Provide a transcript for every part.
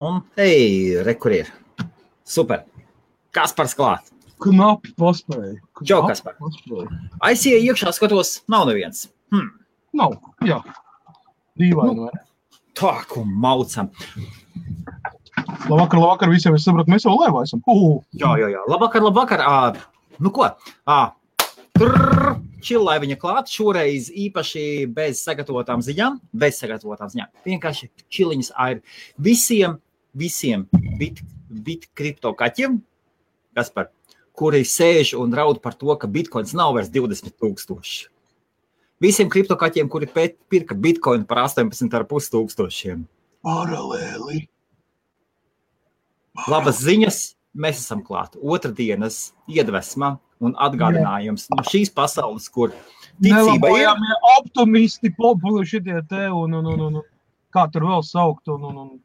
Un, re, kur ir. Super. Kaspars klāt. Knapi paspēja. Čau, Kaspar. Aizsieja iekšā, skatos, nav neviens. Nav, jā. Dīvaini, vai? Tā, ko maucam. Labvakar visiem, es sapratu, mēs jau laivā esam. Jā. Labvakar. Nu ko? Čillaiviņa klāt, šoreiz īpaši bez sagatavotām ziņām. Vienkārši čiliņas ir visiem bit kripto kaķiem, Kaspar, kuri sēž un raud par to, ka bitcoins nav vairs 20,000. Visiem kripto kaķiem, kuri pirka bitcoin par 18,500. Paralēli. Labas ziņas, mēs esam klāt. Otrdienas iedvesma un atgādinājums no šīs pasaules, kur ticība ir. Optimisti, šitie te un kā tur vēl saukt un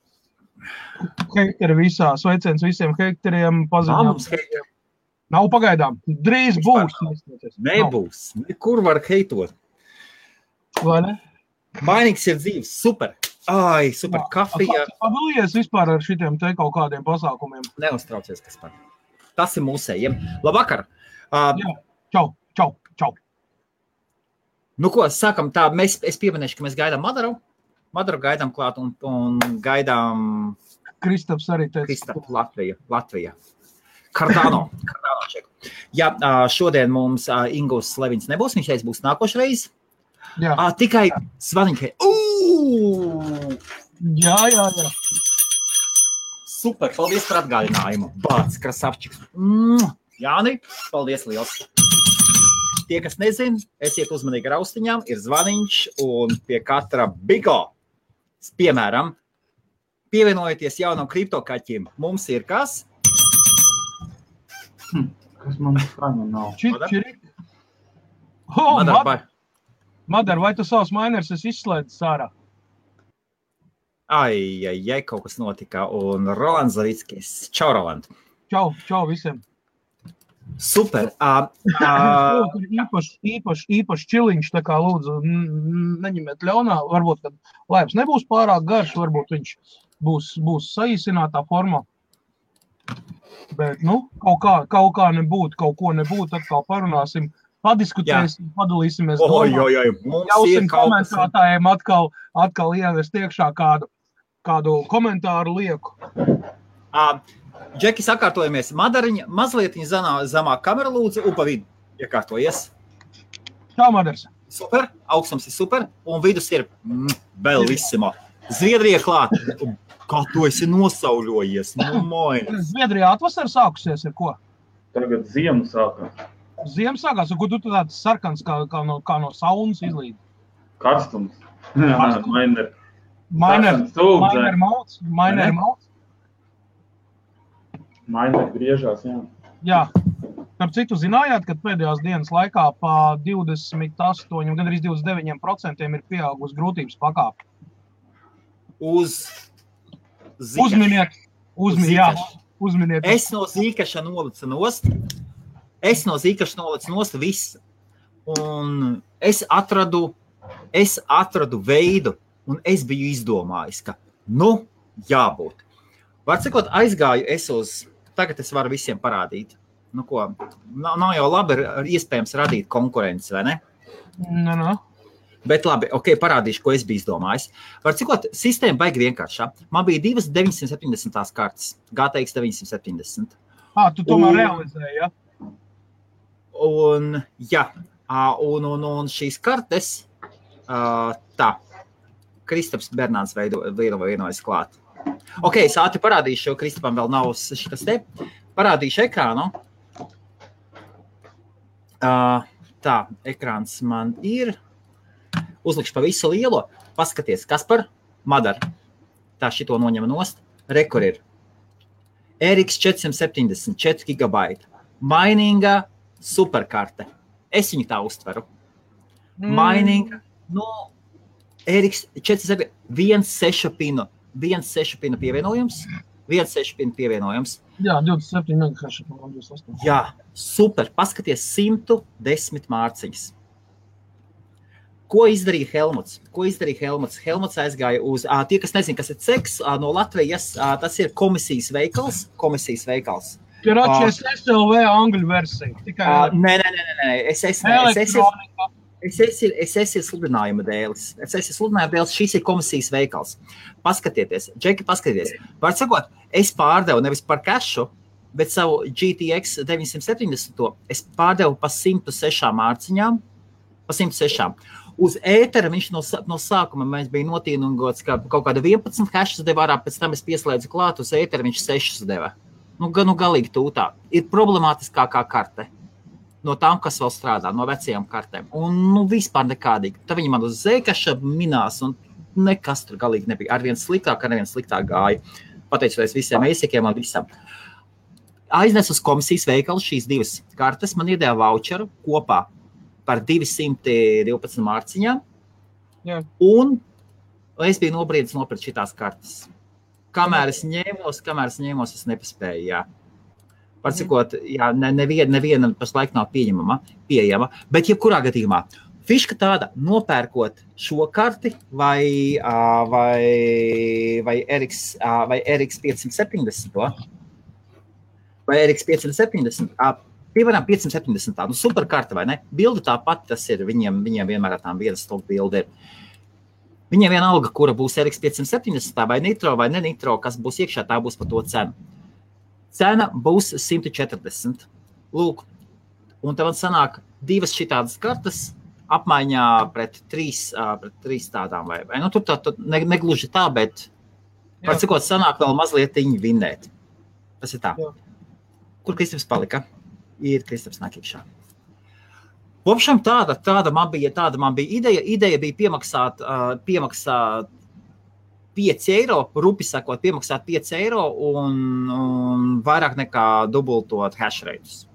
hekteri visā. Sveiciens visiem hekteriem, paziņām. Nav pagaidām. Drīz būs. Nebūs. Kur var heitot? Vai ne? Mainīgs ir dzīves. Super. Ai, super kafija. Padalies vispār ar šitiem te kaut kādiem pasākumiem. Neuztraucies, Kaspar. Tas ir mūsējiem. Labvakar. Jā. Čau. Nu ko, sākam tā, es pieminēšu, ka mēs gaidām Madaru gaidām klāt un gaidām Kristaps arī teica. Kristap Latvija. Cardano čeku. Jā, šodien mums Ingūs Levins nebūs, viņš būs nākošreiz. Jā. Tikai zvaniņkai. Jā. Super, paldies par atgādinājumu. Bāc, krasavčiks. Jāni, paldies liels. Tie, kas nezin, esiet uzmanīgi ar austiņām, ir zvaniņš un pie katra bigo. Piemēram, pievienojieties jaunam kriptokaķim. Mums ir kas? Kas man skaņa nav? Čiri. Madar, vai tu savus miners izslēdzi sārā? Ai, kaut kas notika. Un Rolands Zavickis. Čau, Roland. Čau visiem. Super. Īpaši čiliņš, tā kā lūdzu, neņemiet ļaunā. Varbūt, kad laivs nebūs pārāk garš, varbūt viņš būs saīsinātā formā. Bet, kaut kā nebūt, kaut ko nebūt, atkal parunāsim, padiskutēsim, padalīsimies Ļausim komentētājiem atkal ievest iekšā kādu komentāru lieku. Džeki, sakārtojamies. Madariņa, mazliet zamāk kamera lūdzu, un pa vidu iekārtojies. Čau, Madars. Super, augstums ir super, un vidus ir bellissimo. Zviedrija klāt. Kā tu esi nosauļojies? Zviedrijā atvasara sākusies, ir ko? Tagad ziema sākās. Ziema sākās, un ko tu tāds sarkans kā no saunas izlīd? Karstums. Mainer griežās, jā. Jā. Par citu zinājāt, ka pēdējās dienas laikā pa 28, gandrīz 29% ir pieaugusi grūtības pakāpe. Uzminiet. Es no zīkaša nolicu nost visu. Un es atradu veidu, un es biju izdomājis, ka, jābūt. Var cikot, aizgāju tagad es varu visiem parādīt. Nu ko, nav jau labi iespējams radīt konkurenci, vai ne? No. Bet labi, parādīšu, ko es biju izdomājis. Var cikot, sistēma baigi vienkāršā. Man bija 2 970 kartas, GTX 970. Tu tomēr realizēji, ja? Un šīs kartes, Kristaps Bernāns vienojas klāt. Es ātri parādīšu, jo Kristapam vēl nav šitas te. Parādīšu ekrānu. Ekrāns man ir. Uzlikšu pa visu lielo. Paskaties, Kaspar, Madar. Tā šito noņem nost. Rekur ir. RX 470, 4 GB. Mininga superkarte. Es viņu tā uztveru. Mininga, RX 470, 1.6 pinu pievienojums. Jā, 27 MHz. Jā, super. Paskaties, 110 mārciņas. Ko izdarīja Helmuts? Helmuts aizgāja uz, tie, kas nezin, kas ir CEX, no Latvijas, tas ir komisijas veikals. Ir atšķies SLV angļu versija. Nē. SS ir sludinājuma dēlis. Šis ir komisijas veikals. Paskatieties, Džeki, paskatieties. Var sakot, es pārdevu nevis par cašu, bet savu GTX 970, es pārdevu pa 106 mārciņām, Uz ētera viņš no sākuma mēs bija notīnungots, ka kaut kāda 11 hashas deva ārā, pēc tam es pieslēdzu klāt, uz ētera viņš 6 deva. Nu galīgi tūtā. Ir problemātiskākā karte no tām, kas vēl strādā, no vecajām kartēm. Un vispār nekādīgi. Tā viņi man uz zēkaša minās, un nekas tur galīgi nebija. Arvien sliktāk gāja. Pateicoties visiem eisikiem un visam. Aiznes uz komisijas veikalu šīs 2 kartes, man iedēja voucheru kopā par 212 mārciņām, un es biju nobriedis nopirkt šitās kartes. Kamēr es ņēmos, es nepaspēju, jā. Pārcikot, jā, neviena pašlaik nav pieejama, bet jebkurā gadījumā. Fiška tāda, nopērkot šo karti vai RX 570, vai RX 570, Piemēram, 570, super karta, vai ne? Bilde tāpat, tas ir, viņiem vienmēr tām viena stūk bilde ir. Viņiem vienalga, kura būs RX 570, vai nitro, vai ne nitro, kas būs iekšā, tā būs par to cenu. Cena būs 140. Lūk, un tev sanāk 2 šitādas kartas apmaiņā pret 3 tādām, vai nu tur negluži tā, bet par cikot sanāk vēl mazliet vinnēt. Tas ir tā. Jā. Kur Kristaps palika? Ir Kristaps nāk iekšā. Vopšam tāda man bija ideja. Ideja bija piemaksāt 5 eiro, rupi sakot, piemaksāt 5 eiro un vairāk nekā dubultot hash rates.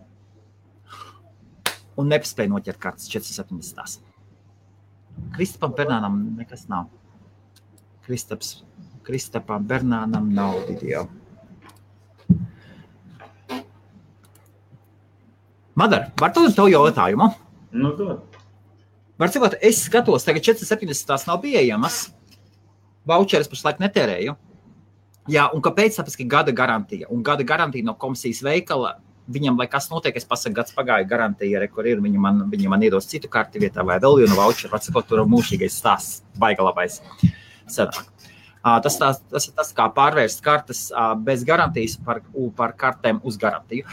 Un nepaspēja noķert kartas 470. Kristapam Bernānam nekas nav. Kristapam Bernānam nav video. Madar, var to jautājumu? Nu, dod. Var cikot, es skatos, tagad 470 nav pieejamas. Voucheres pašlaik netērēju. Jā, un kāpēc? Tāpēc, ka gada garantija. Un gada garantija no komisijas veikala, viņam, lai kas notiek, es pasaku, gads pagāja garantija, kur ir, viņi man iedos citu karti vietā vai vēl vienu voucheru. Var cikot, tur mūžīgais stāsts, baiga labais sanāk. Tas ir tas, kā pārvērst kartes bez garantijas par kartēm uz garantiju.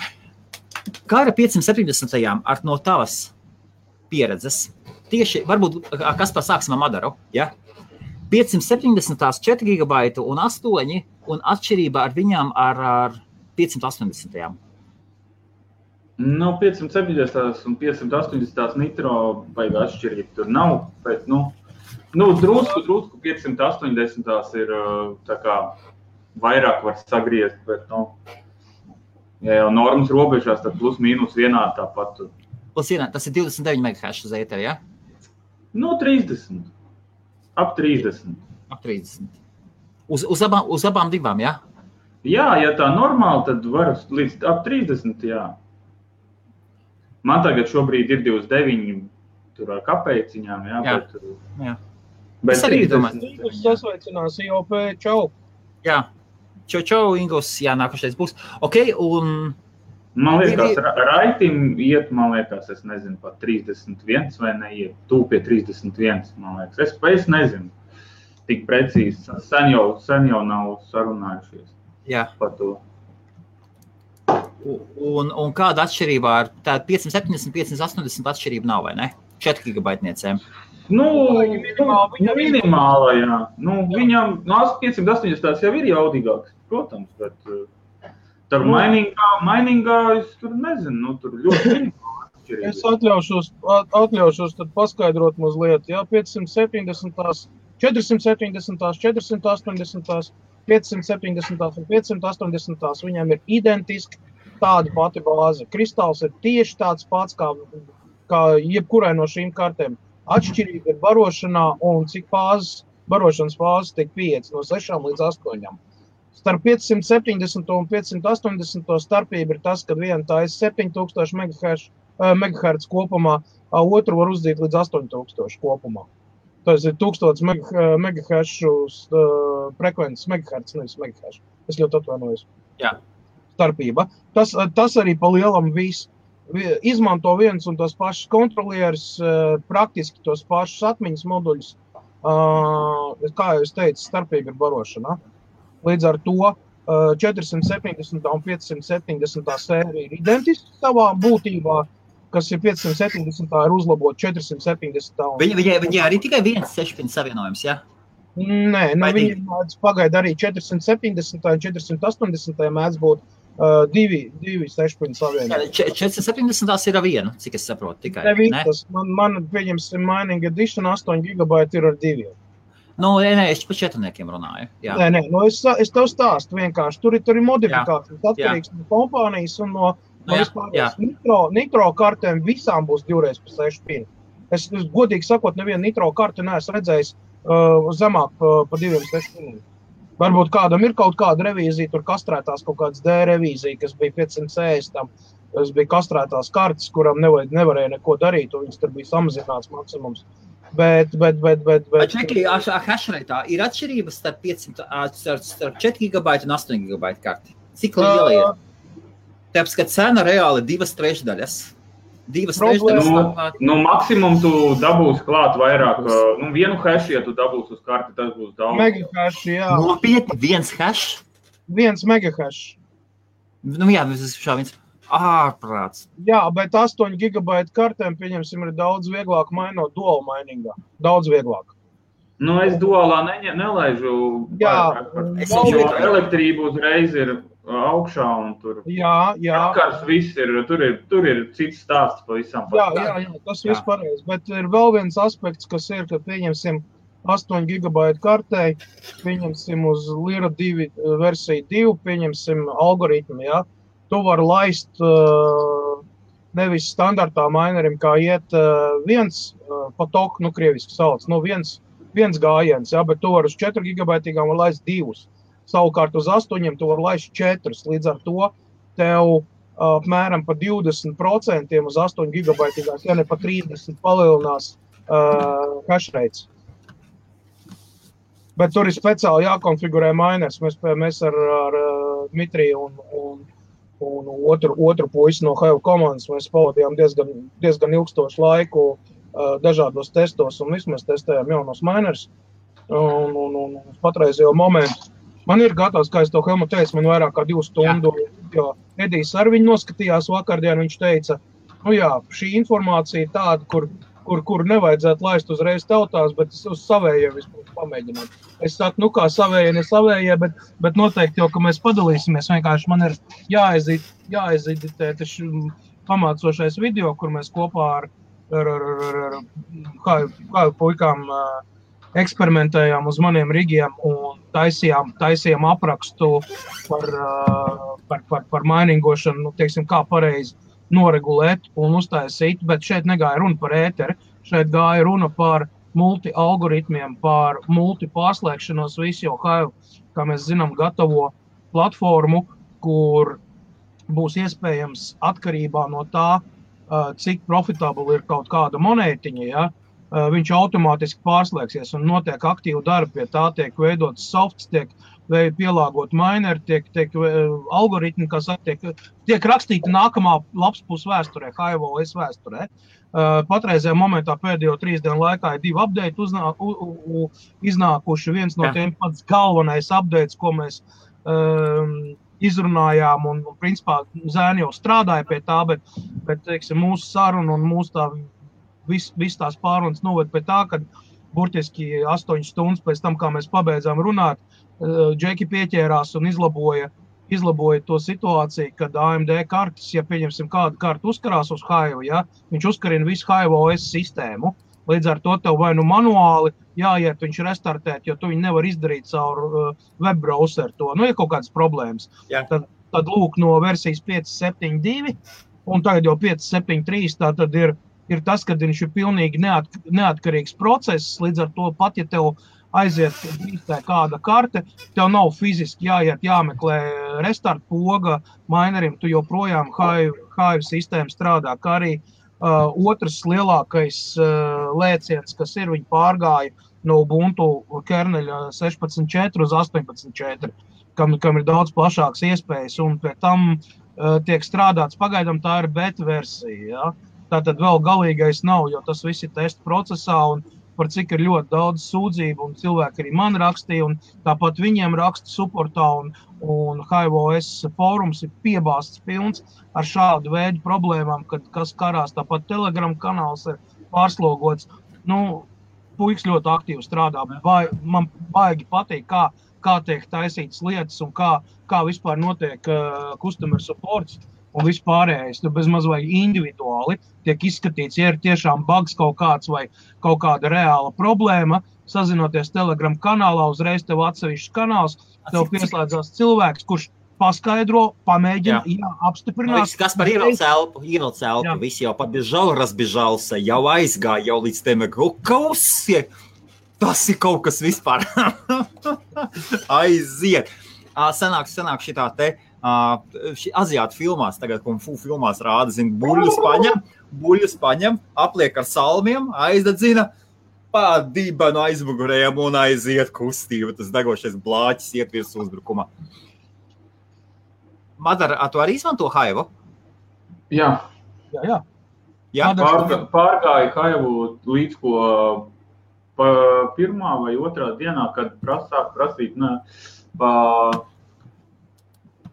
Kā ar 570. ar no tavas pieredzes? Tieši, varbūt, kas pasāksim ar Madaru, ja? 570. 4 GB un 8, un atšķirība ar viņām ar 580. Nu, 570. un 580. nitro baigā atšķirība tur nav, bet, drusku 580. ir tā kā vairāk var sagriezt, bet, ja jau normas robežās, tad plus mīnus vienā tāpat. Plus vienā, tas ir 29 MHz uz ēteri, ja? 30. Ap 30. Ap 30. Uz abām divām, ja? Jā, ja tā normāli, tad var līdz ap 30, jā. Man tagad šobrīd ir 29 tur ar kapeiciņām, jā, jā. Bet 30. Ingus sasveicinās IOP, čau. Jā. Čau, Ingus, jā, nākošais būs. Ok, un... Man liekas, Raitim iet, es nezinu, pat 31 vai neiet, pie 31, man liekas. Es nezinu, tik precīzi, sen jau nav sarunājušies par to. Un kāda atšķirība ar tā 570, 580 atšķirība nav, vai ne? 4 gigabaitniecēm. Minimāla, jā. Viņam 580 jau ir jaudīgāks, protams, bet tur mainingā es tur nezinu, tur ļoti minimāla atšķirība. Es atļaušos tad paskaidrot mazliet, jā, 570, 470, 480, 570 un 580, viņam ir identiski tāda pati bāze. Kristāls ir tieši tāds pats kā jebkurai no šīm kartēm. Atšķirība ir barošanā un cik barošanas fāzes tiek 5 no 6 līdz 8. Starp 570 un 580 starpība ir tas, kad viena tā ir 7000 MHz, MHz kopumā, otru var uzdīt līdz 8000 kopumā. Tas ir 1000 MHz frekvences, MHz, nevis MHz. Es ļoti atvainojos. Jā. Starpība. Tas arī pa lielam viss. Izmanto viens un tos pašus kontrolierus, praktiski tos pašus atmiņas moduļus. Kā jau es teicu, starpība ir barošana. Līdz ar to 470 un 570 sērija ir identiski savā būtībā, kas ir 570 ir uzlabot 470. Viņi arī tikai viens 6-pin savienojums, ja? Nē, viņi mēdz pagaida arī 470 un 480 mēdz būt divi 6-pin savienojumi. 470 ir ar vienu, cik es saprotu tikai. Ne? Man pieņemsim Mining Edition 8 GB ir ar 2. Nē, es par 4-niekiem runāju. Jā. Nē, es tev stāstu vienkārši. Tur ir modifikācijas atkarīgs no kompānijas un no vispārējās nitro kartēm visām būs 2x6 pin. Es godīgi sakot, nevienu nitro karti neesmu redzējis zemāk pa 2x6 piniem. Varbūt kādam ir kaut kāda revīzija, tur kastrētās kaut kādas D revīzija, kas bija 560 tam. Tas bija kastrētās kartes, kuram nevarēja neko darīt, un viņas tur bija samazināts maksimums. Bet... Čeki, hashrateā ir atšķirības starp 4 GB un 8 GB karti. Cik liela ir? Tāpēc, ka cena reāli 2/3. 2/3. Maksimum tu dabūsi klāt vairāk. Vienu hash, ja tu dabūsi uz karti, tas būs daudz. Megahash, jā. Nopietni, viens hash? 1 megahash. Jā, tas ir viens ārprāts. Jā, bet 8 GB kartēm, pieņemsim, ir daudz vieglāk mainot dual miningā. Daudz vieglāk. Es dualā nelaižu. Jā. Elektrība uzreiz ir augšā un tur. Jā. Vakars viss ir, tur ir cits stāsts pa visam. Jā, tas viss pareizi. Bet ir vēl viens aspekts, kas ir, ka pieņemsim 8 GB kartei, pieņemsim uz Lyra 2 versiju 2, pieņemsim algoritmu, jā. Tu vari laist nevis standartā minerim, kā iet viens patok, krieviski sauc, viens gājiens, jā, bet tu vari uz 4 GB var laist 2. Savukārt uz 8 tu vari laist 4. Līdz ar to tev apmēram pa 20% uz 8 GB, ja ne pa 30 palielinās hash rates. Bet tur ir speciāli jākonfigurē miners. Mēs ar Dmitriju un otru puisi no Hive komandas mēs pavadījām diezgan ilgstošu laiku dažādos testos un visu mēs testējām jaunos miners un patreizējo momentu. Man ir gatavs, kā es to Helmu teicu, man vairāk kā 2 stundu, jo Edijs ar viņu noskatījās vakardien, viņš teica, šī informācija ir tāda, kur nevajadzētu laist uzreiz tautās, bet es uz savējiem vispār pamēģināt. Es saku, kā savējie, ne savējie, bet noteikti jau, ka mēs padalīsimies, vienkārši man ir jāizeditē pamācošais video, kur mēs kopā ar kā puikām eksperimentējām uz maniem rigiem un taisījām aprakstu par miningošanu, teiksim, kā pareizi noregulēt un uztaisīt, bet šeit negāja runa par ēteri, šeit gāja runa par multi-algoritmiem, par multi-pārslēgšanos visu, jo Hive, kā mēs zinām, gatavo platformu, kur būs iespējams atkarībā no tā, cik profitabli ir kaut kāda monētiņa, ja, viņš automātiski pārslēgsies un notiek aktīvu darbu pie tā, tiek veidots softs, tiek pielāgot mineri, tiek algoritmi, kas tiek rakstīti nākamā lapspus vēsturē, Hive OS vēsturē. Patreizajā momentā pēdējo 3 dienu laikā ir 2 update iznākuši. Viens no tiem pats galvenais updates, ko mēs izrunājām un principā zēni jau strādāja pie tā, bet teiksim, mūsu saruna un mūsu tā viss tās pārunas noved pie tā, ka burtiski 8 stundas pēc tam, kā mēs pabeidzām runāt, Džeki pieķērās un izlaboja to situāciju, kad AMD kartes, ja pieņemsim kādu kartu uzkarās uz Hive, ja, viņš uzkarina visu Hive OS sistēmu, līdz ar to tev vai manuāli jāiet viņš restartēt, jo tu viņu nevar izdarīt caur web browser to, ir kaut kādas problēmas. Tad lūk no versijas 5.7.2 un tagad jau 5.7.3, tā tad ir tas, kad viņš ir pilnīgi neatkarīgs process, līdz ar to pat, ja tev aiziet brīstē kāda karte, tev nav fiziski jāiet jāmeklē restart poga minerim, tu joprojām Hive sistēma strādā, kā arī otrs lielākais lēciens, kas ir, viņi pārgāja no Ubuntu kerneļa 16.4 uz 18.4, kam ir daudz plašāks iespējas, un pie tam tiek strādāts, pagaidām tā ir beta versija, ja? Tātad vēl galīgais nav, jo tas viss ir testa procesā, un par cik ir ļoti daudz sūdzību, un cilvēki arī man rakstīja, un tāpat viņiem raksta supportā, un HiveOS fórums ir piebāsts pilns ar šādu veidu problēmām, kad kas karās, tāpat Telegram kanāls ir pārslogots. Puiks ļoti aktīvi strādā, man baigi patīk, kā tiek taisītas lietas un kā vispār notiek customer supports un vispārējais. Tur bez maz vai individuāli tiek izskatīts, ja ir tiešām bugs kaut kāds vai kaut kāda reāla problēma, sazinoties Telegram kanālā, uzreiz tev atsevišķs kanāls, tev pieslēdzās cilvēks, kurš paskaidro, pamēģina, apstiprināt. Kaspar ievelc elpu, visi jau pabiežal, razbiežался, jau aizgāja, jau līdz tiem kausie. Tas ir kaut kas vispār. Aiziet. Sanāk šitā te aziātu filmās, tagad Kung Fu filmās rāda, buļļus paņem, apliek ar salmiem, aizdedzina, pādība no aizmugurējiem un aiziet kustība. Tas degošais blāķis iet virs uzbrukumā. Madara, tu arī izmanto Hive? Jā. Pārgāja Hive līdz ko pirmā vai otrā dienā, kad sāk prasīt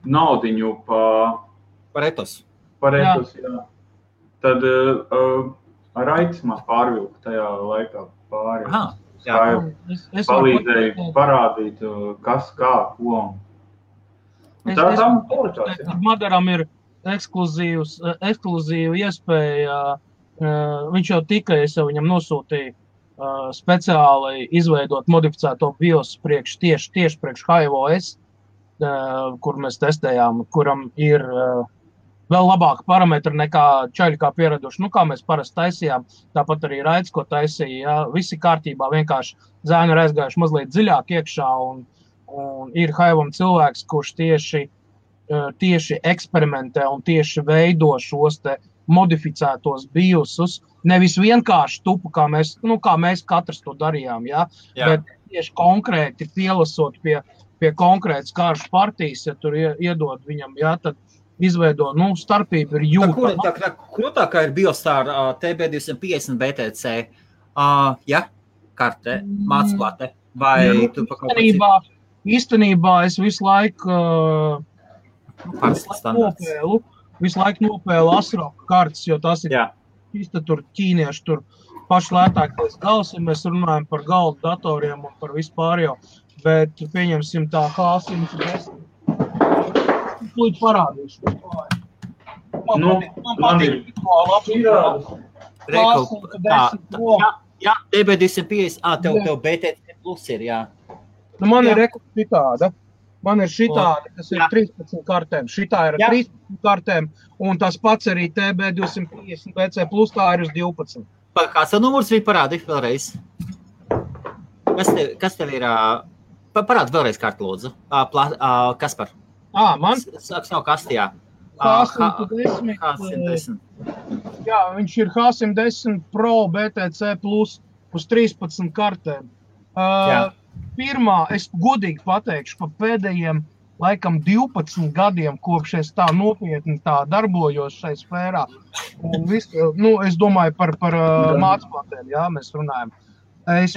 naudiņu par etos. Jā. Tad Raits man pārvilka tajā laikā pāri. Palīdzēja parādīt, kas, kā, ko. Madaram ir ekskluzīva iespēja, viņš jau tikai, es jau viņam nosūtīju speciāli izveidot modificēto BIOS tieši priekš HiveOS, kur mēs testējām, kuram ir vēl labāka parametri nekā čaļi kā pieraduši, kā mēs parasti taisījām, tāpat arī Raits, ko taisīja, visi kārtībā, vienkārši zēni ir aizgājuši mazliet dziļāk iekšā, un ir Hive'am cilvēks, kurš tieši eksperimentē un tieši veido šos te modificētos BIOSus, nevis vienkārši tupu, kā mēs katrs to darījām, bet tieši konkrēti pielasot pie konkrētas kāršu partijas, ja tur iedod viņam, tad izveido, starpība ir jūtama. Krūtākā ir BIOS ar TB250 BTC, karte, mācplate, vai tu pa kaut ko Īstenībā es visu laiku nopēlu Asroka kartes, jo tas ir īsti tur ķīnieši, tur paši lētākais gals, ja mēs runājam par galdu datoriem un par vispārējo, bet pieņemsim tā H110. Lūdzu parādīšu. Man patīk Jā, TB250, tev BTC plus ir, Man ir šitāda. Man ir šitāda, kas ir 13 kartēm. Šitā ir 13 kartēm, un tas pats arī TB250 BC plus, tā ir uz 12. Kāds numurs bija parādi vēlreiz? Kas tev ir? Parādi vēlreiz kartu, lūdzu. Kaspar? Man? Sāks nav kastījā. H110. Jā, viņš ir H110 Pro BTC plus uz 13 kartēm. Pirmā, es godīgi pateikšu, pa pēdējiem, laikam, 12 gadiem, kopš es tā nopietni darbojos šai sfērā. Un es domāju par mācplātēm, mēs runājam. Es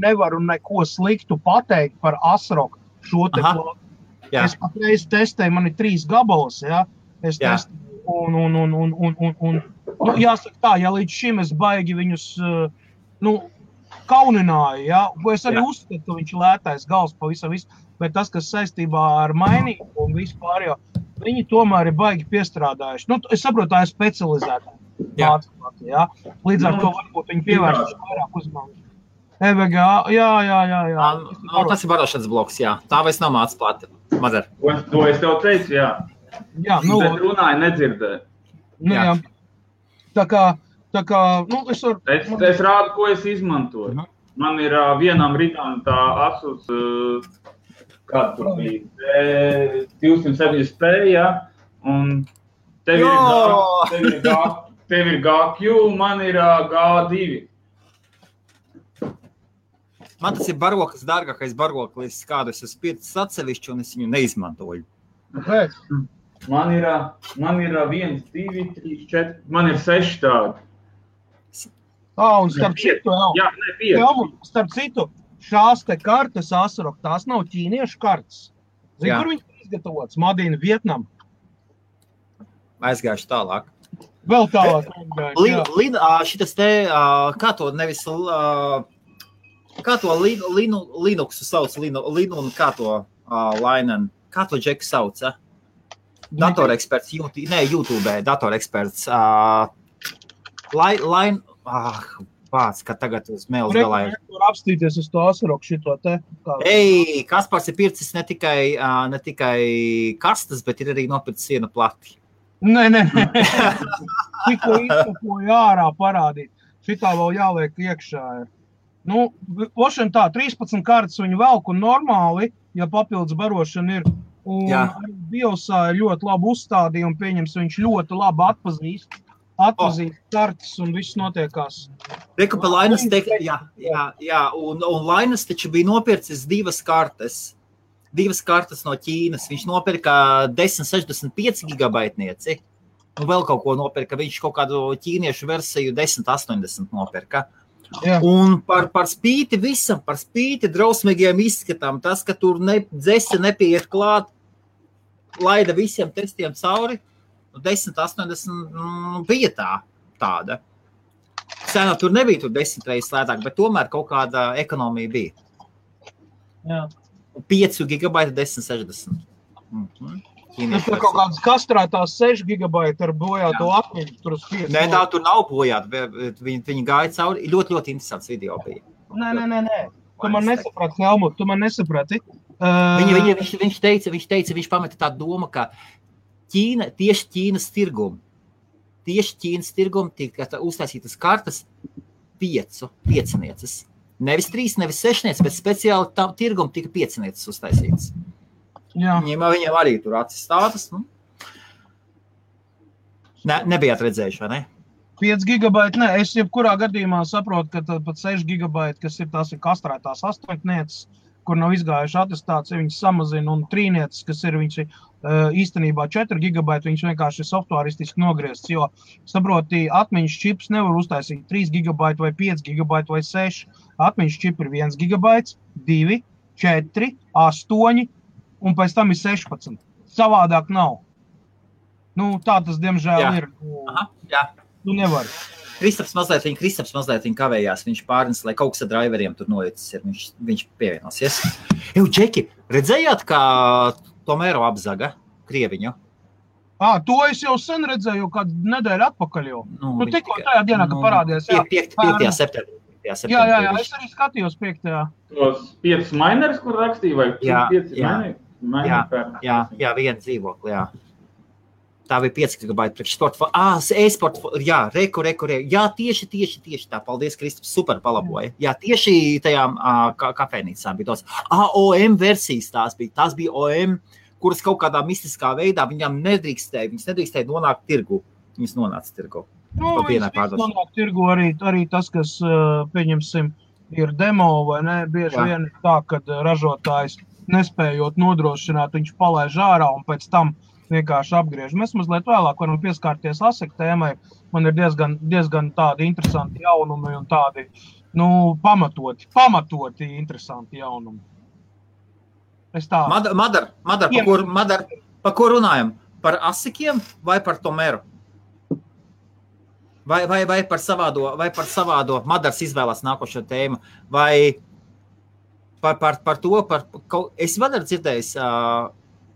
nevaru neko sliktu pateikt par Asroku šo te plātu. Es patreiz testēju, man ir 3 gabalas, Es testēju, un jāsaka tā, ja līdz šim es baigi viņus, kaunināju, Es arī uzskatu, ka viņš ir lētais gals pavisam visu, bet tas, kas saistībā ar mainību un vispār, viņi tomēr ir baigi piestrādājuši. Es saprotu, tā ir specializēta mācība, Līdz ar to varbūt viņi pievērš vairāk uzmanību. EVGA, jā. Tas ir barošanas bloks, Tā vairs nav mācība, Madara. To es tev teicu, Bet runāju nedzirdēju. Tā kā, es rādu, ko es izmantoju. Man ir vienam rītām tā Asus Kāda tur bija? 270p, jā. Un tev ir GQ, man ir G2. Man tas ir barokas dārgākais baroklis, kādu es esmu pircis atsevišķi, un es viņu neizmantoju. Kāpēc? Man ir 1, 2, 3, 4, man ir 6 tādi. Un starp citu, Jā, ne 5. Starp citu, šās te kartes Asurok, tās nav ķīniešu kartes. Zini, Jā. kur viņi izgatavots? Madīna, Vietnam. Aizgājuši tālāk. Vēl tālāk. Šitas te, kā to nevis, kā to Linuxu sauc, Linu un kā to Lainen, kā to Džeku sauc, Datoreksperts, YouTube, datoreksperts, Vāc, ka tagad uz mēles galā ir. Tur apstīties uz to Asurok šito te. Kaspars ir pircis ne tikai kastas, bet ir arī nopircis sienu plati. Nē. Tikko izkapoju ārā parādīt. Šitā vēl jāliek iekšā ir. Ošana tā, 13 kartas viņu velk un normāli, ja papildus barošana ir. Un arī biosā ir ļoti labi uzstādīja un pieņems, viņš ļoti labi atpazīst kartas un viss notiekās. Reku pa Lainas un Lainas taču bija nopircis divas kartas no Ķīnas. Viņš nopirka 1065 gigabaitnieci, un vēl kaut ko nopirka. Viņš kaut kādu ķīniešu versiju 1080 nopirka. Jā. Un par spīti visam, par spīti drausmīgiem izskatām, tas, ka tur dzese nepieiet klāt, laida visiem testiem cauri, 1080 bija tāda. Cenā tur nebija tur 10 reizes lētāk, bet tomēr kaut kāda ekonomija bija. Jā. 5 gigabaita 1060. Tur kaut kādas kastrētās 6 gigabaita ar bojāto atmiņu. Nē, tā tur nav bojāta. Viņi gāja cauri. Ļoti, ļoti interesants video bija. Nē. Tu man nesaprati, Helmut, tu man nesaprati. Viņš pameta tādu domu, ka tieši Ķīnas tirgumu tika uztaisītas kartas 5 Nevis 3, nevis 6, bet speciāli tam tirgumu tika 5 uztaisītas. Jā. Viņiem arī tur acis stātas. Nebijāt redzējuši, vai ne? 5 gigabaiti, nē. Es jebkurā gadījumā saprotu, ka pat 6 gigabaiti, kas ir tās ir kastrētās 8, kur nav izgājuši atestācija, viņas samazina, un 3, kas ir viņš īstenībā 4 gigabaiti, viņš vienkārši ir softwaristiski nogriezts, jo, saproti, atmiņas čips nevar uztaisīt 3 gigabaiti vai 5 gigabaiti vai 6. Atmiņas čip ir 1 gigabaits, 2, 4, 8, un pēc tam ir 16. Savādāk nav. Tā tas, diemžēl, ir. Jā. Tu nevari. Kristaps mazliet kavējās, viņš pārnes, lai kaut kas ar driveriem tur noicis ir, viņš pievienosies. Džeki, redzējāt, kā Tomēro apzaga Krieviņu? To es jau sen redzēju, kādu nedēļu atpakaļ jau. Tikko tajā dienā, kad parādījās. 5. septembrī. Jā, es arī skatījos 5. Tos 5 minerus, kur rakstīja, vai 5 mineri? Jā, viena dzīvokli, jā. Tā bija 5 gigabaiti priekšsporta. E-sporta, jā, reku. Jā, tieši tā. Paldies, Kristaps, super palaboja. Jā, tieši tajām kafejnīcām bija tos. OM versijas tās bija OM, kuras kaut kādā mistiskā veidā viņam nedrīkstēja nonākt tirgu. Viņas nonāca tirgu. Viņas nonāk tirgu arī tas, kas, pieņemsim, ir demo vai ne, bieži vien tā, kad ražotājs nespējot nodrošināt, viņš palaiž ārā un pēc tam vienkārši apgriež. Mēs mazliet vēlāk varam pieskārties ASIC tēmai. Man ir diezgan tādi interesanti jaunumi un tādi, pamatoti interesanti jaunumi. Es tā. Madar, pa ko runājam? Par ASICiem vai par Tomēru? Vai par savādo? Madars izvēlās nākošo tēmu. Vai par to, es vēl ar dzirdējis,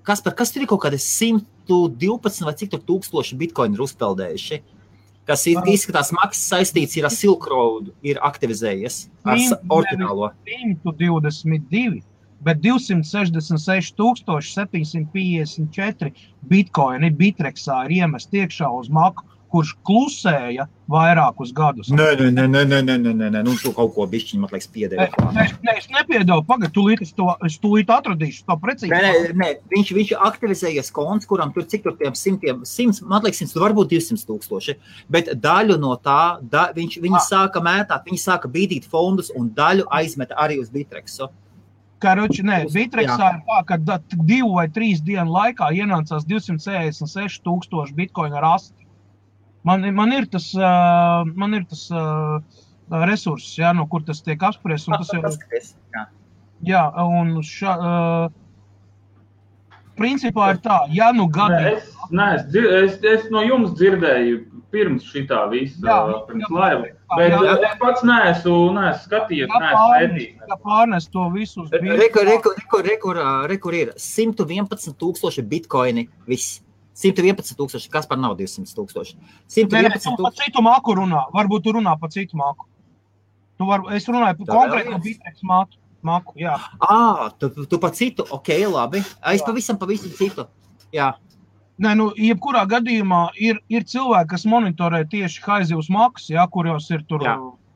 kas tur ir kaut kādi 112 vai cik tur tūkstoši bitcoini ir uzpeldējuši, kas izskatās maksas saistīts ir ar Silk Road, ir aktivizējies ar oriģinālo. 122, bet 266 754 bitcoini Bitrexā ir iemest iekšā uz Maku kurš klusēja vairākus gadus. Nē, nu tu kaut ko bišķiņ, man liekas, piedēvi. Es nepiedevu, pagad, es tūlīt atradīšu to precīzi. Nē, viņš aktivizējies konts, kuram tur cik tur tiem 100, man liekas, 100, varbūt 200,000, bet daļu no tā, viņi sāka mētāt, viņi sāka bīdīt fondus un daļu aizmeta arī uz Bitrexu. Karoči, Bitrexā ir tā, ka 2 vai 3 dienu laikā ienācās 266,000 bitkoina rasti. Man ir tas resurss, ja, no kur tas tiek apspriests. Jā, un principā ir tā, ja nu gadi... Es no jums dzirdēju pirms šitā visa, pirms laiva, bet es pats neesmu skatījies, neesmu pētījis. Ja pārnes to visu uz Rekur ir 111,000 bitkoini viss. 111,000, kas par nav 200,000. 111,000. Tu par citu māku runā, varbūt tu runā par citu māku. Es runāju par konkrētu Bitrex māku, jā. Tu par citu, ok, labi. Es pavisam citu, jā. Nē, jebkurā gadījumā ir cilvēki, kas monitorē tieši haizivs maksas, jā, kuros ir tur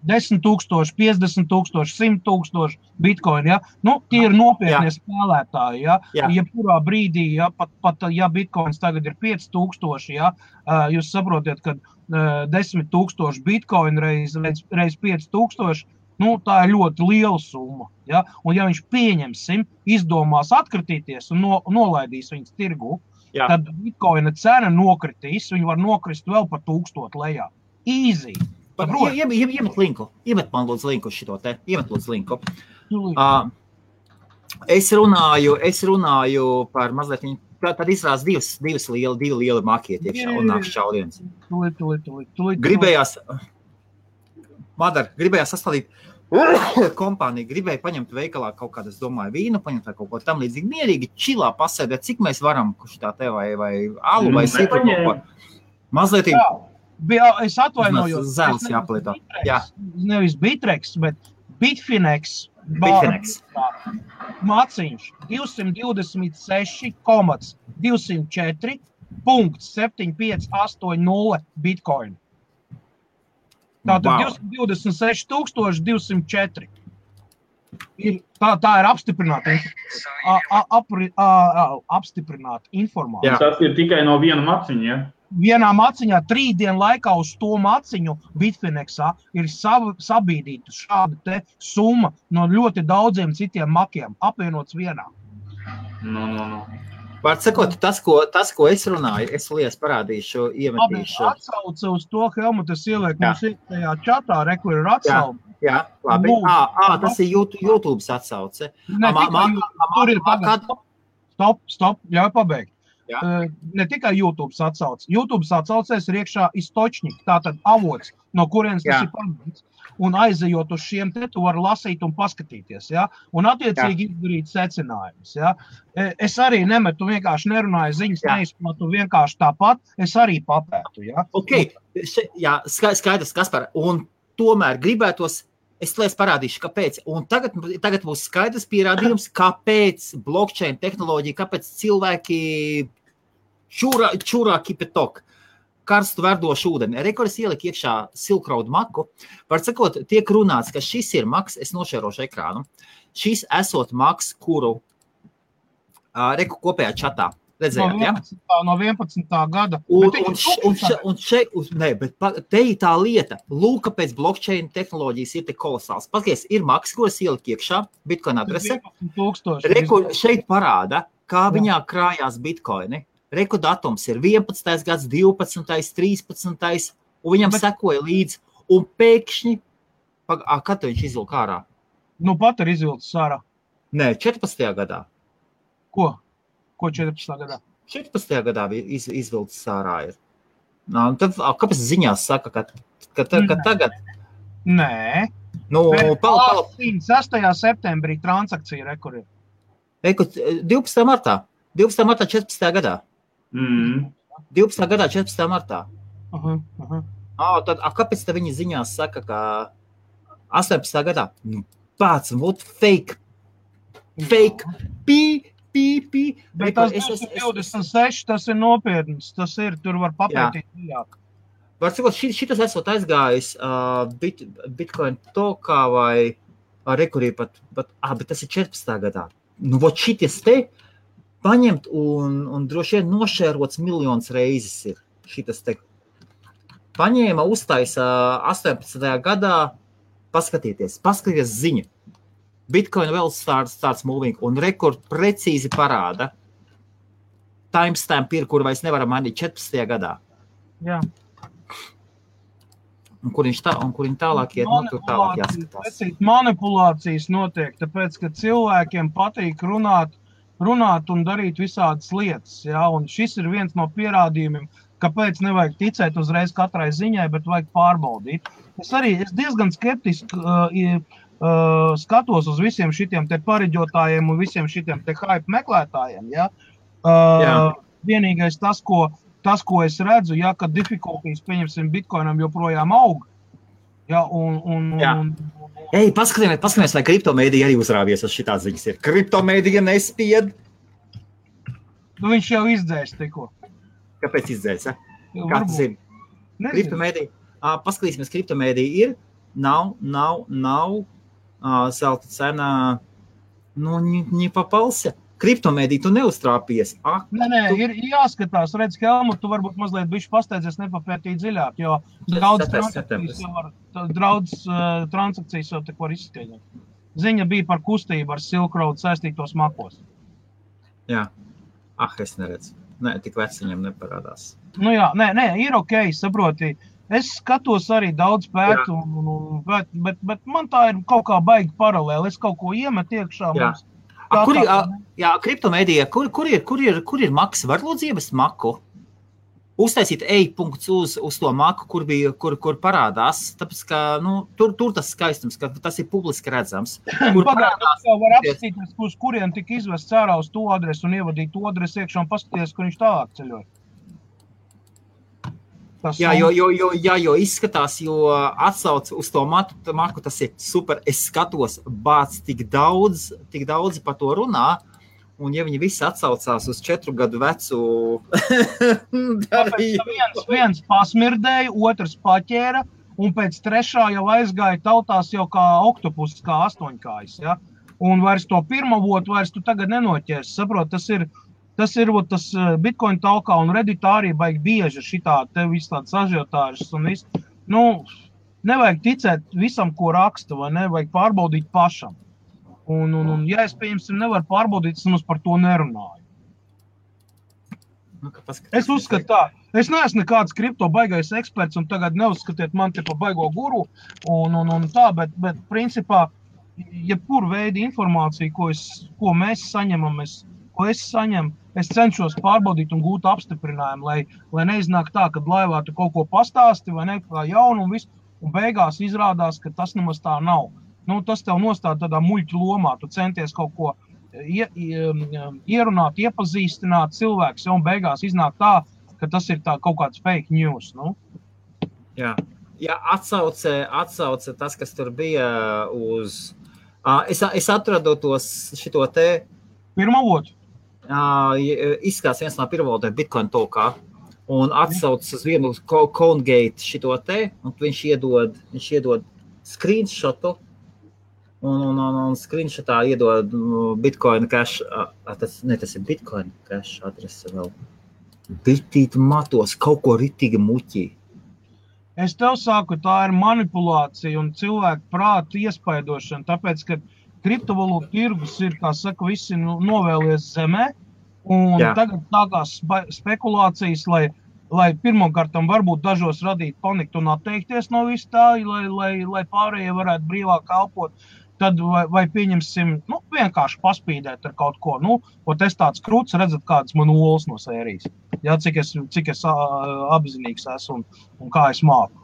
10,000, 50,000, 100,000 bitkoini, ja? Tie ir nopietnie spēlētāji, ja? Jebkurā brīdī, ja, pat ja bitkoins tagad ir 5,000, ja, jūs saprotiet, ka 10,000 bitkoini reiz 5,000, tā ir ļoti liela summa, ja? Un ja viņš pieņemsim, izdomās atkritīties un nolaidīs viņas tirgu, tad bitkoina cena nokritīs, viņi var nokrist vēl par 1000 lejā. Easy! Iemet linku. Iemet man lūdzu linku šito te. Iemet lūdzu linku. Es runāju par mazliet, tad izrās divi lieli makieti iekšā un nāk šauliens. Gribējās sastādīt kompāniju, gribēja paņemt veikalā kaut kādu, es domāju, vīnu, paņemt vai kaut ko tam līdzīgi mierīgi, čilā pasēdēt, cik mēs varam, kurš tā te vai alu vai sītu kaut ko. Mazliet Es atvainojos. Zēls jāpalietā. Nevis Bitrex, bet Bitfinex. Maciņš 224,204.7580 bitkoinu. Tātad 226,204. Tā ir apstiprināta informācija. Tas ir tikai no viena maciņa, ja? Vienā maciņā 3 dienu laikā uz to maciņu Bitfinexā ir sabīdīta šāda te summa no ļoti daudziem citiem makiem, apvienots vienā. Vārds sakot, tas, ko es runāju, es lies parādīšu, iemetīšu. Atsauce uz to, Helmutas ieliek mums ir tajā čatā, kur ir atsauce. Jā, labi. Tas ir YouTube atsauce. Tur ir pagad. Stop, ļauj pabeigt. Ne tikai YouTube atsauc. YouTube atsaucēs ir iekšā istočņik, tātad avots, no kurienes tas ir paņemts. Un aizejot uz šiem te, tu vari lasīt un paskatīties, ja? Un attiecīgi izdarīt secinājumus, ja? Es arī nemetu, vienkārši nerunāju ziņas, neizplatu vienkārši tāpat, es arī papētu, ja? Ok, skaidrs, Kaspar, un tomēr gribētos, es lies parādīšu, kāpēc. Un tagad būs skaidrs pierādījums, kāpēc blockchain tehnoloģija, kāpēc cilvēki čurā kipetok, karstu verdošu ūdeni. Rekordis ielika iekšā Silk Road maku. Var sakot, tiek runāts, ka šis ir maks, es nošērošu ekrānu, šis esot maks, kuru reku kopējā čatā. Redzējāt, ja? No 11. gada. Bet te ir tā lieta. Lūk, kāpēc blockchain tehnoloģijas ir tik kolosāls. Paskaties, ir maks, kuras ielika iekšā, bitcoin adrese. Reku šeit parāda, kā viņā krājās bitcoini. Reku datums ir 11. gads, 12. 13. Un viņam sekoja līdz. Un pēkšņi, kad viņš izvilka ārā? Pat ir izvilcis ārā. Nē, 14. gadā. Ko 14. gadā? 14. gadā izvilcis ārā ir. Kāpēc ziņās saka, ka tagad? Nē. 6. septembrī transakcija rekur ir. 12. martā. 12. martā 14. gadā. 12. gadā 14. martā. Tad, kāpēc te viņi ziņās saka, ka 18. gadā? Pats, fake. Bet tas 26, tas ir nopietns, tas ir, tur var papētīt dziļāk. var sakot, šitas esot aizgājis Bitcoin tokā vai rekurī pat, bet tas ir 14. gadā. Nu, vot šities te paņemt un droši vien nošērots miljonus reizes ir šitas te. Paņēma, uztaisa 18. gadā, paskatieties ziņu. Bitcoin vēl starts moving un rekord precīzi parāda. Timestamp ir, kur vairs nevaram mainīt 14. gadā. Jā. Un kur viņš tālāk iet, tur tālāk jāskatās. Manipulācijas notiek, tāpēc, ka cilvēkiem patīk runāt un darīt visādas lietas. Ja? Un šis ir viens no pierādījumiem, kāpēc nevajag ticēt uzreiz katrai ziņai, bet vajag pārbaudīt. Es diezgan skeptiski skatos uz visiem šitiem te pareģotājiem un visiem šitiem te hype meklētājiem. Ja? Vienīgais tas, ko es redzu, ja, ka difficulties, pieņemsim, Bitcoinam joprojām aug. Ja, Ei, paskatāmies, vai kriptomēdija arī uzrāvies uz šitās ziņas ir. Kriptomēdija nespied. Nu, viņš jau izdzēs tikko. Kāpēc izdzēs, ja? Kā tas ir? Kriptomēdija. Paskatīsimies, kriptomēdija ir. Nav zelta cena, не попался. Kriptomēdija, tu neuztrāpies. Nē, ir jāskatās, redz, Helmut, tu varbūt mazliet bišķi pasteidzies nepapētīt dziļāk, jo daudz transakcijas jau te var izskaidrot. Ziņa bija par kustību ar Silk Road saistītos makos. Jā. Es neredzu. Nē, tik veci viņam neparādās. Nu jā, nē, ir okei, saproti. Es skatos arī daudz pētu, bet man tā ir kaut kā baigi paralēli. Es kaut ko iemetu iekšā mums. Kriptomēdija, kur ir maks? Var lūdzu ievest maku? Uztaisīt e-punkts uz to maku, kur parādās, tāpēc, ka, tur tas skaistums, ka tas ir publiski redzams. Pagādās, var apstīties, uz kurien tika izvests ārā uz to adresu un ievadīt to adresu iekšā un paskaties, kur viņš tālāk ceļoja. Jo izskatās, jo atsauc uz to maku, tas ir super. Es skatos, bāc tik daudz par to runā, un ja viņi visi atsaucās uz 4 gadu vecu darījumu. Viens pasmirdēja, otrs paķēra, un pēc 3. jau aizgāja tautās jau kā oktopus, kā 8-kājs, ja? Un vairs to pirmavotu vairs tu tagad nenoķers, saprot, tas ir Bitcoin talkā un Redditā arī baigi bieži šitā, te viss tāds ažiotāžas un viss. Nevajag ticēt visam, ko raksta, vai ne, vajag pārbaudīt pašam. Un ja es, pieņemsim, nevaru pārbaudīt, es mums par to nerunāju. Es uzskatu tā, es neesmu nekāds kripto baigais eksperts un tagad neuzskatiet man te pa baigo guru un tā, bet principā, jebkur veidi informācija, ko mēs saņemam, ko es saņemu, es cenšos pārbaudīt un gūt apstiprinājumu, lai neiznāk tā, kad laivā tu kaut ko pastāsti vai ne, kā jaunu un visu, un beigās izrādās, ka tas nemaz tā nav. Tas tev nostāda tādā muļķu lomā, tu centies kaut ko ierunāt, iepazīstināt cilvēks, un beigās iznāk tā, ka tas ir tā kaut kāds fake news, Jā, atsauce tas, kas tur bija uz... Es atradu šito te... Pirmavotu? Izskatās viens no pirmavotiem Bitcoin talkā un atsaucas uz vienu CoinGate šito te, un viņš iedod screenshotu un screenshotā iedod Bitcoin cash, tas ir Bitcoin cash adrese vēl. Bitīt matos, kaut ko ritīgi muķī. Es tev saku, tā ir manipulācija un cilvēku prātu iespaidošana, tāpēc, ka kriptovalūtu tirgus ir, kā saka, visi novēlies zemē, un tagad sākās spekulācijas, lai pirmkārtam varbūt dažos radīt paniku un atteikties no visu tā, lai pārējie varētu brīvāk kalpot, tad vai pieņemsim, vienkārši paspīdēt ar kaut ko, es tāds krūts, redzat, kādas man olas no sērijas, cik es apzinīgs esmu un kā es māku,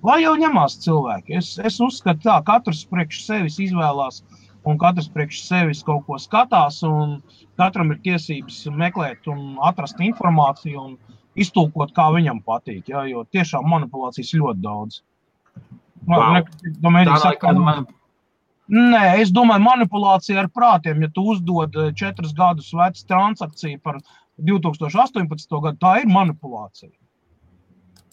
lai jau ņemās cilvēki. Es uzskatu tā, katrs priekš sevis izvēlās un katrs priekš sevis kaut ko skatās un katram ir tiesības meklēt un atrast informāciju un iztulkot, kā viņam patīk, jo tiešām manipulācijas ļoti daudz. Nē, es domāju, manipulācija ar prātiem, ja tu uzdod 4 gadus vecu transakciju par 2018. gadu, tā ir manipulācija.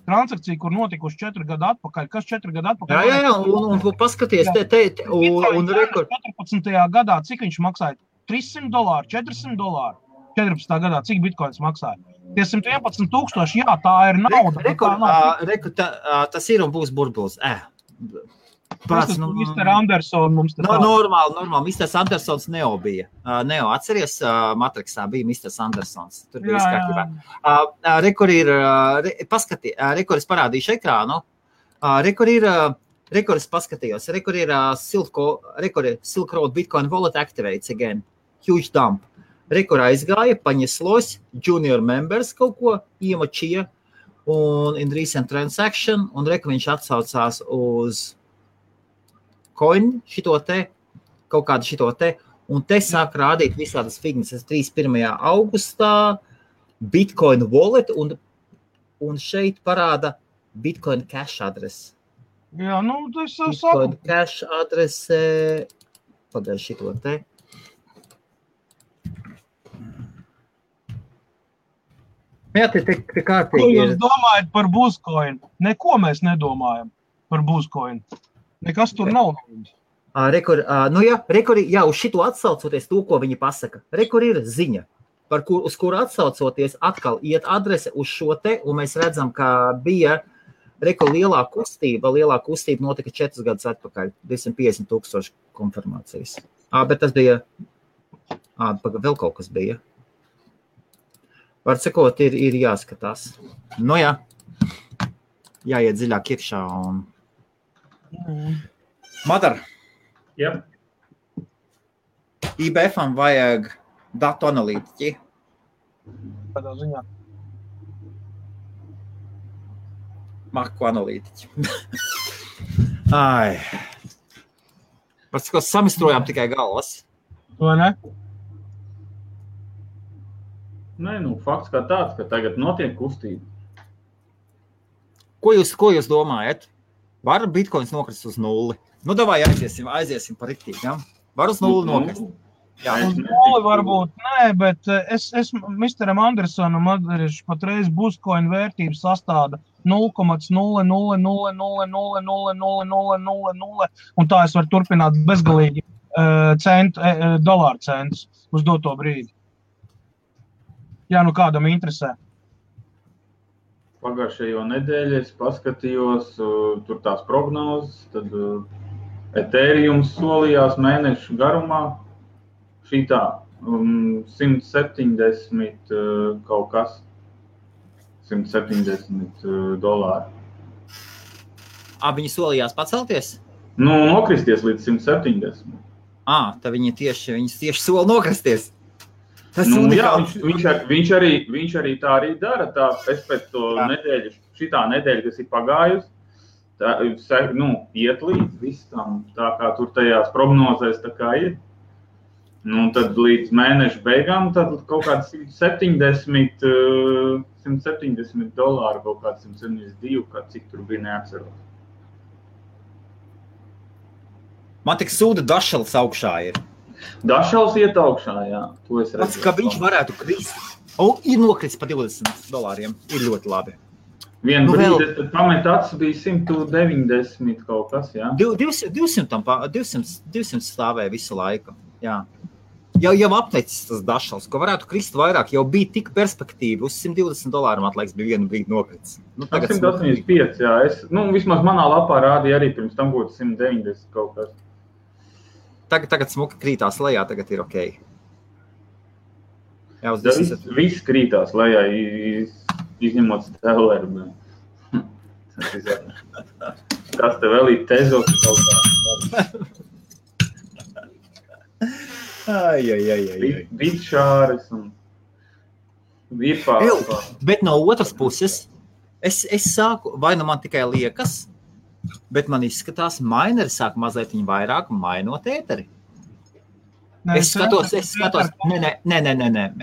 transakcija, kur notikuši 4 gadu atpakaļ. Kas 4 gadu atpakaļ? Jā, un paskaties, un rekord. 14. gadā, cik viņš maksāja? $300, $400. 14. gadā, cik bitkoins maksāja? Tie 111,000, jā, tā ir nauda. Tas ir un būs burbulis. Tas Mr. Anderson mums te Normāli. Mr. Andersons Neo bija. Neo, atceries, Matrixā bija Mr. Andersons. Tur bija izkārtībā. Rekord es parādīšu ekrānu. Rekord es paskatījos. Rekord ir Silk Road Bitcoin Wallet activates again. Huge dump. Rekord aizgāja, paņeslos, junior members kaut ko iemočīja un in recent transaction, un rekord viņš atsaucās uz coin šito te, kaut kādu šito te, un te sāk rādīt visādas fignes 31. augustā, Bitcoin wallet, un šeit parāda Bitcoin cash adrese. Jā, tas Bitcoin cash adrese, pagaid šito te. Jā, te kārtīgi ir. Ko jūs domājat par Buzcoin? Neko mēs nedomājam par Buzcoin. Nekas tur nav. Rekord, uz šito atsaucoties to, ko viņi pasaka. Rekord ir ziņa, uz kuru atsaucoties atkal iet adrese uz šo te, un mēs redzam, ka bija rekord lielā kustība notika 4 gadus atpakaļ, 250,000 konfirmācijas. Bet tas bija, vēl kaut kas bija. Var sakot, ir jāskatās. Jāiet dziļāk iekšā un... Madar. Jā. IBF-am vajag datu analītiķi. Kādā ziņā? Makro analītiķi. Ai. Var sakot, samistrojām tikai galvas. Vai ne? Nē, fakts kā tāds, ka tagad notiek kustība. Ko jūs domājat? Var bitcoins nokrist uz nulli? Davai aiziesim par riktīgi, ja? Var uz nulli nokrist? Jā. Uz nulli varbūt nē, bet es Mr. Andersonam atdarīšu patreiz Buzcoin vērtības sastāda 0,000000000, un tā es varu turpināt bezgalīgi dolāru centus uz doto brīdi. Jā, kādam interesē. Pagājušajo nedēļu es paskatījos tur tās prognozes, tad Ethereums solījās mēnešu garumā šitā 170 kaut kas, $170. Viņi solījās pacelties? Nokristies līdz 170. Tad viņi tieši sola nokristies. Viņš arī tā arī dara. Es pēc to nedēļu, šitā nedēļa, kas ir pagājusi, iet līdz visam, tā kā tur tajās prognozēs tā kā ir. Tad līdz mēneša beigām tad kaut kāds $170, kaut kāds 172, kā cik tur bija neatceros. Man tik sūda dašals augšā ir. Dašals iet augšā, jā. To es redzu. Ka viņš varētu krist. Ir nokrits pa $20. Ir ļoti labi. Vienu brīdi, tad pamet acis bija 190 kaut kas, jā. 200 stāvēja visu laiku, jā. Jau apteicis tas dašals, ko varētu krist vairāk, jau bija tik perspektīvi. Uz $120 atlaiks bija vienu brīdi nokrits. 185, jā. Vismaz manā lapā rādīja arī pirms tam būtu 190 kaut kas. Tagad smuki krītās lejā, tagad ir ok. Jā, viss krītās lejā, izņemot Stelleru. Kas te vēl ir Tezos kaut kā? Bitšāres un virpās. Bet no otras puses, es sāku, vai man tikai liekas, bet man izskatās, maineri sāk mazliet viņu vairāk mainot ēteri. Es skatos, nē.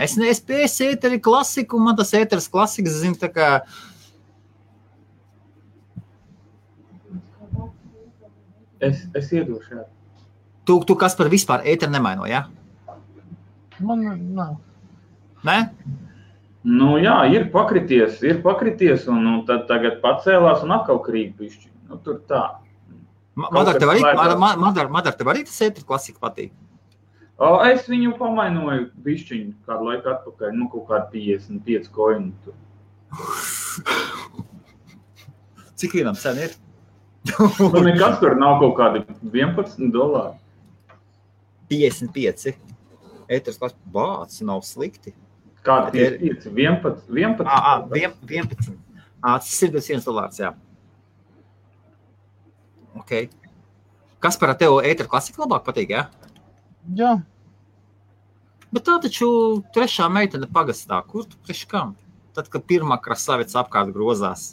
Es pēc ēteri klasiku, man tas ēteris klasikas, zinu, tā kā... Es iedošu, jā. Tu kas par vispār ēteri nemaino, jā? Man nav. Nē? Nu jā, ir pakrities un tad tagad pacēlās un atkal krīt bišķi. Nu, tur tā. Madar, tev arī tas ētri klasika patīk? Es viņu pamainoju bišķiņu kādu laiku atpakaļ, nu kaut kādu 55 koinu tur. Cik vienam sen ir? Nu nekas tur nav kaut kādi $11. 55. Ētris klasika, bāc, nav slikti. Kādi 55? 11? Tas ir $1, jā. Ok. Kas par tev ētri klasika labāk patīk, jā? Jā. Bet tā taču trešā meitene pagastā. Kur tu priekš kam? Tad, kad pirmā krasavica apkārt grozās.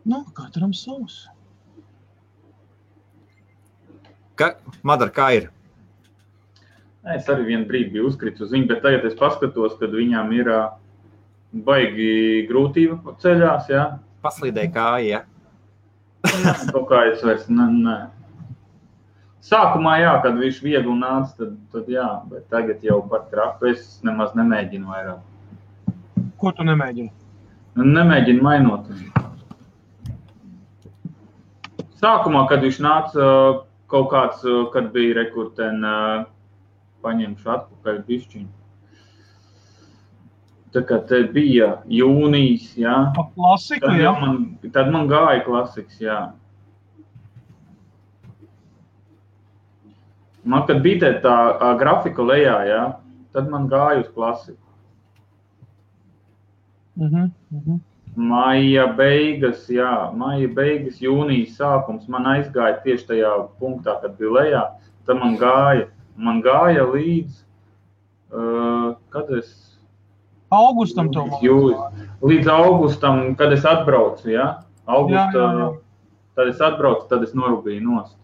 Nu, katram savs. Madar, kā ir? Es arī vienu brīdi biju uzkritis uz viņu, bet tagad es paskatos, kad viņām ir baigi grūtība ceļās, jā. Paslīdēja kāja, jā. Kaut kā es vairs, nē. Sākumā, jā, kad viņš viegli nāca, tad jā, bet tagad jau par traku es nemaz nemēģinu vairāk. Ko tu nemēģini? Nemēģinu mainot. Sākumā, kad viņš nāca kaut kāds, kad bija rekurten, paņemšu atpakaļ bišķiņu. Tā kā te bija jūnijas, jā. Klasika, jā? Tad man gāja klasiks, jā. Man, kad bija tā grafika lejā, jā, tad man gāja uz klasiku. Maija beigas, jūnijas sākums, man aizgāja tieši tajā punktā, kad bija lejā, tad man gāja līdz, kad es... Augustam to līdz augustam, kad es atbraucu, jā? Tad es atbraucu, tad es norūbīju nost.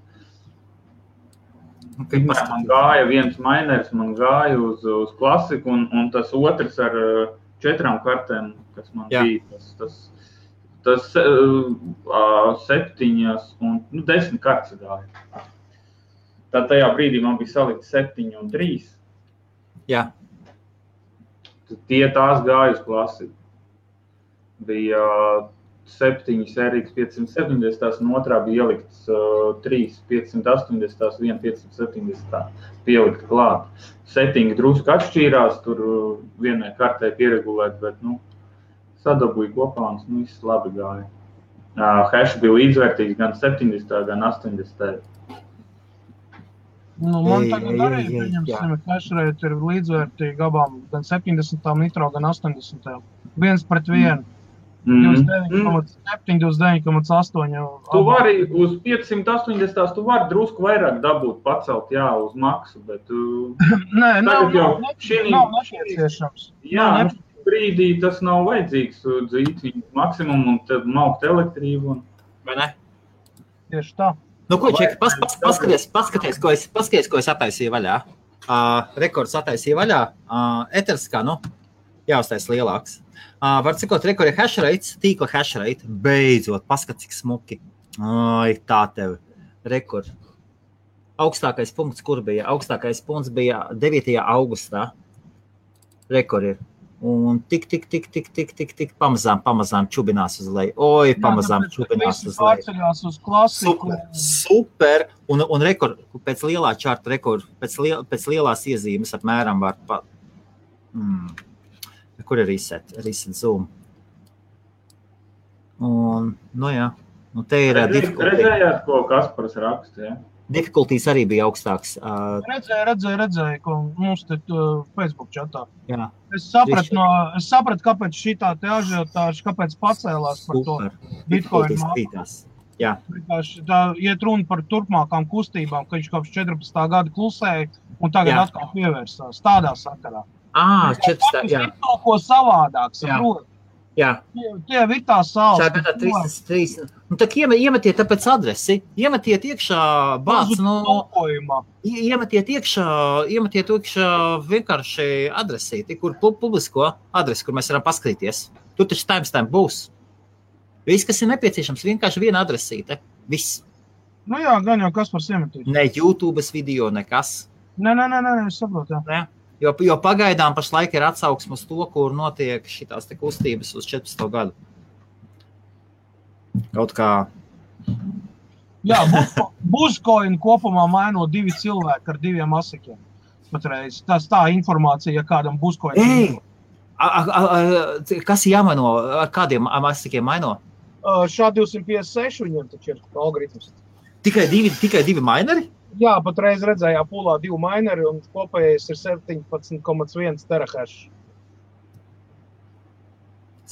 Man gāja viens mainers, man gāja uz klasiku un tas otrs ar 4 kartēm, kas man bija, tas 7 un 10 kartes gāja. Tad tajā brīdī man bija salikt 7 un 3. Jā. Tās gāja uz klasiku. Bija 7 RX 570, un otrā bija ielikts 3 580, 1 570 pielikt klāt. Settingi drusku atšķīrās, tur vienai kartē pieregulēt, bet, sadabūja kopā un viss labi gāja. Hash bija līdzvērtīgs gan 70, gan 80. Man tagad arī, pieņemsim, hash rate ir līdzvērtīgi abām, gan 70 nitro, gan 80. 1/1. 29,7, 29,8. Tu vari uz 580, tu vari drusku vairāk dabūt, pacelt, jā, uz maksu, bet... Nē, nav nepieciešams. Jā, brīdī tas nav vajadzīgs dzīvi, maksimumu un tad maukt elektrību. Vai ne? Tieši tā. Nu, ko, Čeki, paskaties, ko es attaisīju vaļā. Rekords attaisīju vaļā. Eters kā, jāuztais lielāks. Var cikot, rekord ir hash rates, tīkla hash rate. Beidzot, paskat, cik smuki. Ai, tā tev. Rekord. Augstākais punkts, kur bija? Augstākais punkts bija 9. augustā. Rekord ir. Un tik pamazām čubinās uz leju. Oi, pamazām čubinās uz leju. Pārceļās uz klasiku. Super. Un rekord, pēc lielā čarta rekord, pēc lielās iezīmes apmēram var kur ir reset zoom. Un, jā. Un te ir difficulty. Redzējāt, ko Kaspars raksta, jā? Difficulties arī bija augstāks. Redzēju, ko mums te Facebook čatā. Jā. Es sapratu, kāpēc šitā te ažiotāža, kāpēc pacēlās par to Bitcoin māku. Jā. Tā iet runa par turpmākām kustībām, ka viņš kopš 14. gada klusēja un tagad atkal pievērsās tādā sakarā. 14. jā. Kaut ko savādāk, saprot. Jā. Tie ir tā saules. Šā gadā 3. Nu, tak iemetiet tāpēc adresi. Iemetiet iekšā bāc, iemetiet iekšā vienkārši adresīti, kur publisko adresi, kur mēs varam paskatīties. Tur taču timestamp būs. Viss, kas ir nepieciešams, vienkārši viena adresīte. Viss. Jā, gan jau Kaspars iemetīs. Ne YouTube's video, nekas. Nē, es saprotu, jā. Jo pagaidām pašlaik ir atsauksme uz to, kur notiek šitās te kustības uz 14. gadu. Kaut kā... Jā, Buzcoin kopumā maino 2 cilvēki ar 2 asikiem. Patreiz. Tas tā informācija, ja kādam Buzcoin... Kas jāmaino? Ar kādiem asikiem maino? Šā 256 viņiem taču ir algoritms. Tikai divi mineri? Jā, patreiz redzējā pūlā 2 mineri un kopējais ir 17,1 terahash.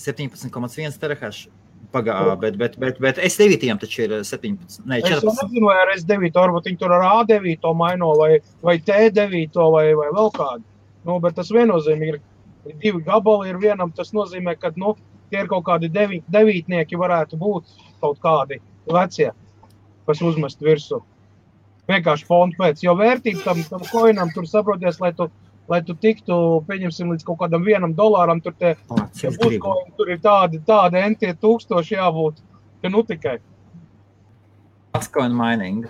17,1 terahash. Bet S9 taču ir 17, ne, 14. Es nezinu, vai ar S9, varbūt viņi tur ar A9 maino vai T9 vai vēl kādu. Nu, bet tas viennozīmīgi ir 2 gabali ir vienam, tas nozīmē, ka, nu, tie ir kaut kādi devītnieki varētu būt kaut kādi vecie, kas uzmest virsū. Vienkārši fondu pēc, jo vērtība tam koinam tur saproties, lai tu tiktu, pieņemsim, līdz kaut kādam $1, tur tie Buzcoin, tur ir tādi entie tūkstoši jābūt, ka nu tikai. Buzcoin mining,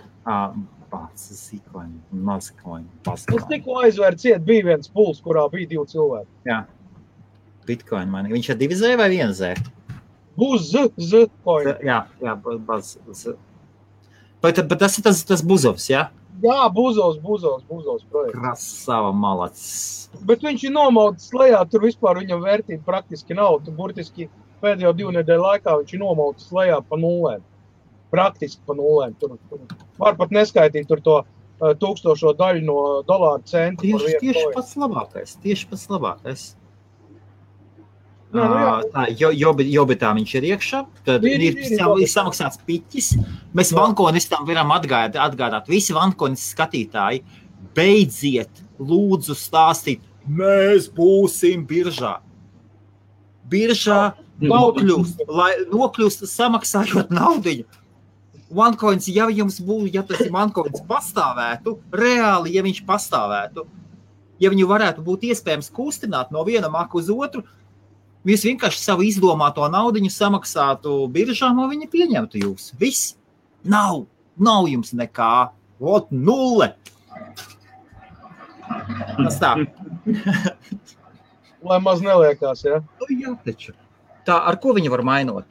Zcoin, Mazcoin, Buzcoin. Es tikko aizvēru ciet, bija viens puls, kurā bija 2 cilvēki. Jā, Bitcoin mining. Viņš ir 2 Z vai 1 Z? Buzcoin. Jā, Buzz. Bet tas ir tas Buzovs, jā? Jā, Buzovs projekts. Krasava malacis. Bet viņš ir nomauts lejā, tur vispār viņam vērtība praktiski nav. Tu burtiski pēdējo 2 nedēļu laikā viņš ir nomauts lejā pa nulēm. Praktiski pa nulēm. Tur var pat neskaitīt tur to 1000 daļu no dolāru centu. Tieši pats labākais. Jā. Jobitā viņš ir iekšā, tad ir samaksāts piķis. Mēs vankonistam varam atgādāt. Visi vankonis skatītāji, beidziet, lūdzu stāstīt, mēs būsim biržā. Biržā nokļūst samaksājot naudiņu. OneCoins, ja tas ir OneCoins pastāvētu, reāli, ja viņš pastāvētu, ja viņu varētu būt iespējams kustināt no viena maka uz otru, jūs vienkārši savu izdomāto naudiņu samaksātu biržām, un viņi pieņemtu jūs. Viss. Nav jums nekā. Ot, 0. Tas tā. Lai maz neliekās, ja? Jā, taču. Tā, ar ko viņi var mainot?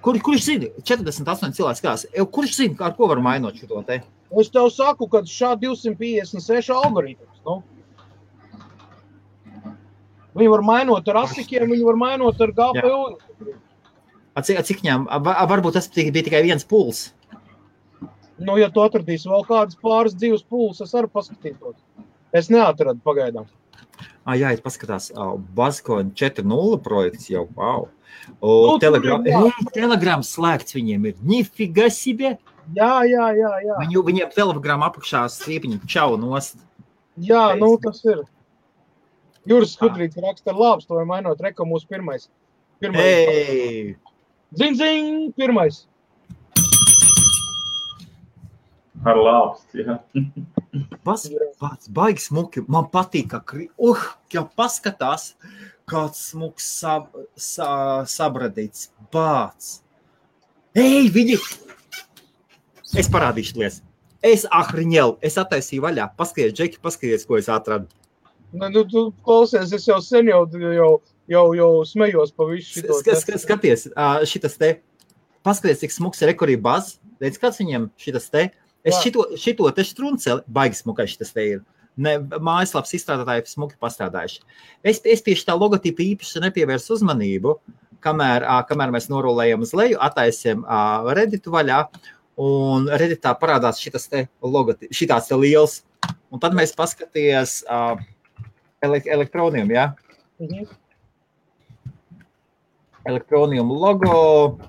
Kurš zina? 48 cilvēks kās. Kurš zina, ar ko var mainot šo te? Es tev saku, ka šā 256 algoritms, nu. Viņi var mainot ar asikiem, viņi var mainot ar GPU. Cik viņām? Varbūt tas bija tikai viens puls. Nu, ja tu atradīsi vēl kādas pāris 2 puls, es arī paskatītos. Es neatradu pagaidām. Jā, es paskatās. Buzcoin 4.0 projekts jau, wow. Telegram slēgts viņiem ir. Nifiga себе. Jā. Viņiem Telegram apakšā striepiņi čau nost. Jā, nu tas ir. Juris Skudrīts raksta ar lābstu, vai mainot reko mūsu pirmais. Zin, pirmais. Ar lābstu, jā. Pats baigi smuki. Man patīk, ka paskatās, kāds smuks sabradīts. Bāc. Viņi! Es parādīšu lies. Es attaisīju vaļā. Paskaties, Džeki, paskaties, ko es atradu. Nu, tu klausies, es jau sen jau smejos pa visu šito. Skaties, šitas te, paskaties, cik smuks ir rekorī Buzz. Redz, kāds viņam šitas te? Es šito te strunceli, baigi smukai šitas te ir. Mājaslaps izstrādātāji smuki pastrādājuši. Es pie šitā logotipa īpaši nepievērsu uzmanību, kamēr mēs norulējam uz leju, attaisiem Redditu vaļā, un Redditā parādās šitas te logotipa, šitās te liels. Un tad mēs paskaties Elektronium, jā? Elektronium logo.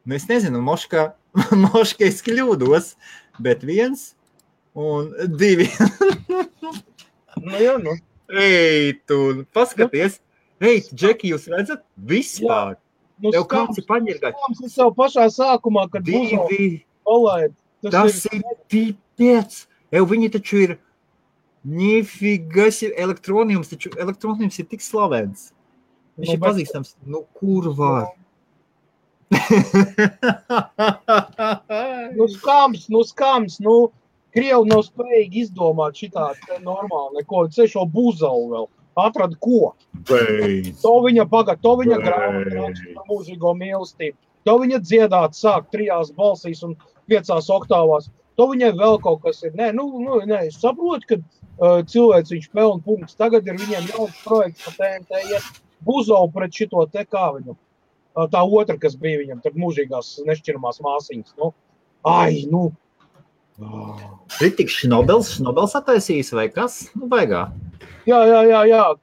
Nu, es nezinu, moška es kļūdos, bet 1 un 2. Nu, jā, nu. Ei, tu, paskaties. Ei, Džeki, jūs redzat? Vispār. Nu, tev kāds ir paņirgāt. Es jau pašā sākumā, kad palaid. Tas ir pipēc. Viņi taču ir nifigas elektroniums, taču elektroniums ir tik slavens. Viņš ir pazīstams. Nu, kur var? Nu, skams. Krievi nav spējīgi izdomāt šitā normāli neko. Ceļ šo buzalu vēl. Atrada ko? Beidz. To viņa grāmatu raksta par mūžīgo mīlestību. To viņa dziedāt sāk 3 balsīs un 5 oktāvās. To viņai vēl kaut kas ir. Nē, es saprotu, ka cilvēks viņš pelna punktus. Tagad ir viņiem jauns projekts pa TNT iet buzalu pret šito te kā viņu. Tā otra, kas bija viņam, tad mūžīgās nešķiramās māsiņas. Kritiks Šnobels attaisījis vai kas? Baigā. Jā.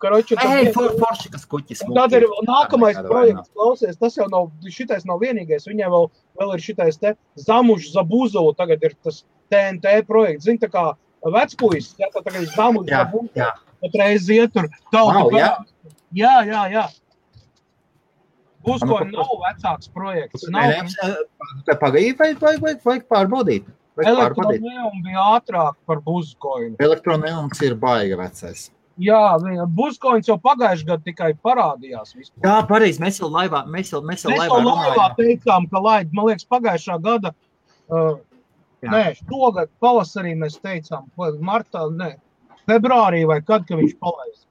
Karoči, forši, kas kuķis. Tad ir nākamais projekts, klausies, tas jau nav, šitais nav vienīgais. Viņai vēl ir šitais te Zamužs Zabuzulu, tagad ir tas TNT projekts. Zini, tā kā vecpuis, tā tagad ir Zamužs Zabuzulu. Patreiz iet tur tautu. Jā. Buzkoņi nav vecāks projekts. Pagaidī vajag pārbaudīt. Elektroneum bija ātrāk par Buzkoņu. Elektroneums ir baiga vecais. Jā, Buzkoņs jau pagājuši gadu tikai parādījās vispār. Jā, pareizi, mēs jau laivā teicām, ka laid, man liekas, pagājušā gada, šogad pavasarī mēs teicām, martā, februārī vai kad, ka viņš palaist.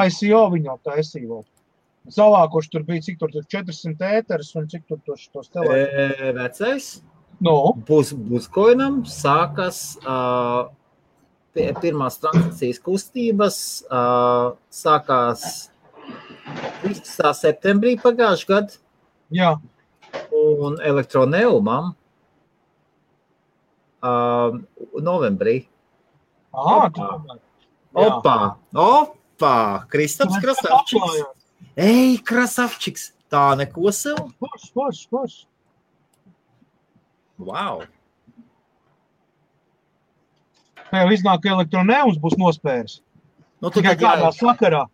ICO viņu taisīja. Savākoši tur bija, cik tur 400 ēteris un cik tur tos telētus. Vecais? No. Buzkoinam sākas pirmās transakcijas kustības, sākās 13. septembrī pagājuši gadu. Jā. Un Elektroneumam novembrī. Opa! Kristaps Krasavčiks. Ej, Krasavčiks! Tā neko sev? Forš. Wow! Jau iznāk, ka Elektroneums būs nospēris. Tikai kādā sakarā.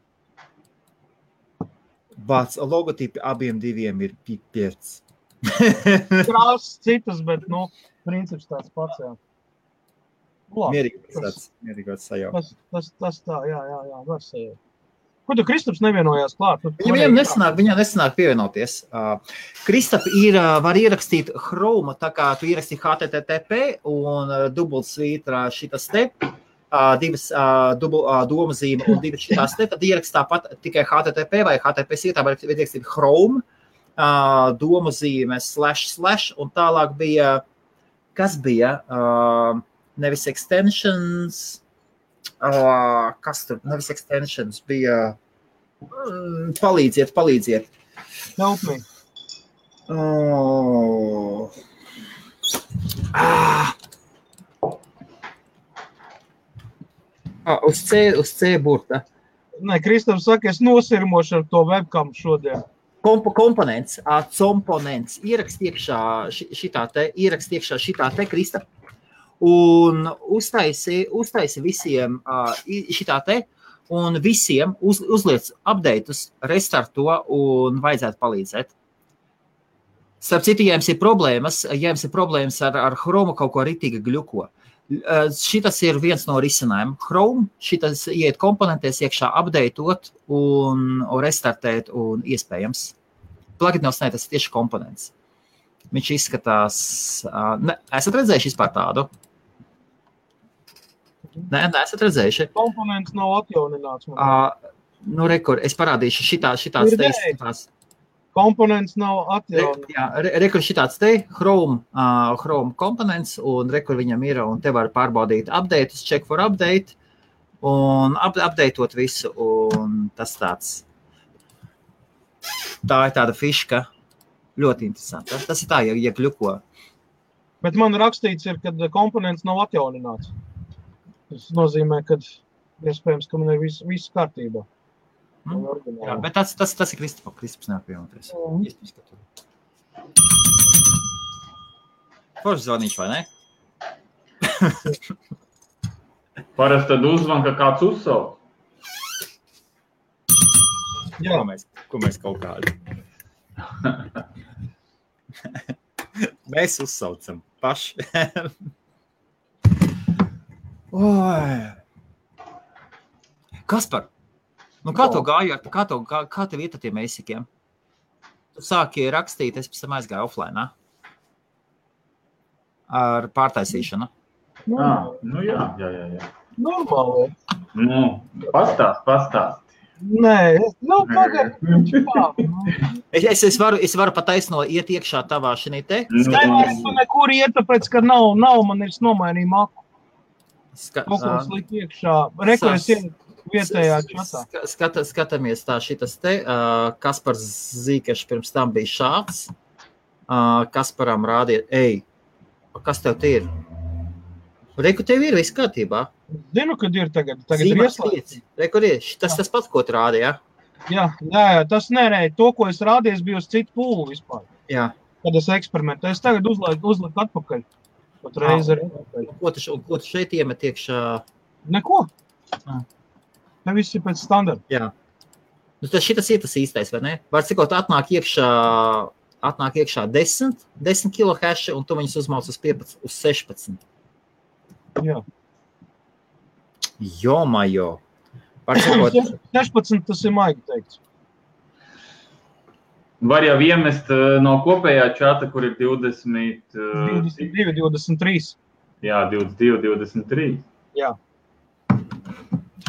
Bāc, logotipi abiem diviem ir pipiec. Krāsas citas, bet, princips tāds pats, jā. Mierīgāts sajaukt. Tas tā, jā, var sajaukt. Ko tu Kristaps nevienojās klāt? Viņam nesanāk pievienoties. Kristap var ierakstīt Chrome, tā kā tu ieraksti HTTP un dubultsvītra šitas te, divas domazīme un divas šitās te, tad ierakst tāpat tikai HTTP vai HTTP sietā var ierakstīt Chrome, domazīme / un tālāk bija, kas bija, nevis extensions, kas tur, nevis extensions, bija palīdziet. Help me. Uz C burta. Nē, Kristaps saka, es nosirmošu ar to webcam šodien. Komponents, ierakst iekšā šitā te Kristap. Un uztaisi visiem šitā te, un visiem uzliec updateus, restarto un vajadzētu palīdzēt. Starp citu, ja jums ir problēmas ar Chrome kaut ko ritīgi gļuko, šitas ir viens no risinājumiem. Chrome, šitas iet komponentēs iekšā updateot un restartēt un iespējams. Pluginos, tas ir tieši komponents. Viņš izskatās, esat redzējuši vispār tādu? Nē, esat redzējuši. Komponents nav atjaunināts. Rekur, es parādīšu šitāds te. Komponents nav atjaunināts. Jā, rekur šitāds te, Chrome komponents, un rekur viņam ir, un te var pārbaudīt updateus, check for update, un updateot visu, un tas tāds. Tā ir tāda fiška. Ļoti interesanti. Tas ir tā, ja kļuko. Bet man rakstīts ir, kad komponents nav atjaunināts. Tas nozīmē, ka iespējams, ka man ir viss kārtībā. Jā, bet tas ir Kristaps neapvienoties. Iespējams, ka tur. Forši zvanīšu, vai ne? Parasti tad uzvan, ka kāds uzsauc. Jā, ko mēs kaut kādi. Mēs uzsaucam paši. Kaspar, kā tev gāja, kā tev iet ar tiem eisikiem? Tu sāki rakstīt, es pēc tam aizgāju offline, ar pārtaisīšanu. Nu jā. Normāli. Nu, pastāst. Nē, tagad. Es varu pataisno iet iekšā tavā šinī te. Tu nekur iet, tāpēc, ka nav, man ir nomainīja maku. Kaut ko slikt iekšā. Rekojas iet vietējā čatā. Skatāmies tā šitas te. Kaspars Zīkešs pirms tam bija šāds. Kasparam rādiet, kas tev te ir? Reku, tev ir viss kārtībā. Zinu, kad ir tagad ir ieslēgts. Reku, tas pats, ko tu rādi, jā? Jā, tas nerēja. To, ko es rādīju, bija uz citu pūlu vispār. Jā. Kad es eksperimentu. Es tagad uzliku atpakaļ. Pat reizi arī. Ko tu šeit iemet iekšā? Neko. Ne viss ir pēc standarta. Jā. Nu, šitas ir tas īstais, vai ne? Var cikot atnāk iekšā 10 kilo haši, un tu viņus uzmauc uz 15, uz 16. Jā. Jomajo. 16 tas ir maigi teikts. Var jau iemest no kopējā čata, kur ir 22, 23. Jā, 22, 23. Jā.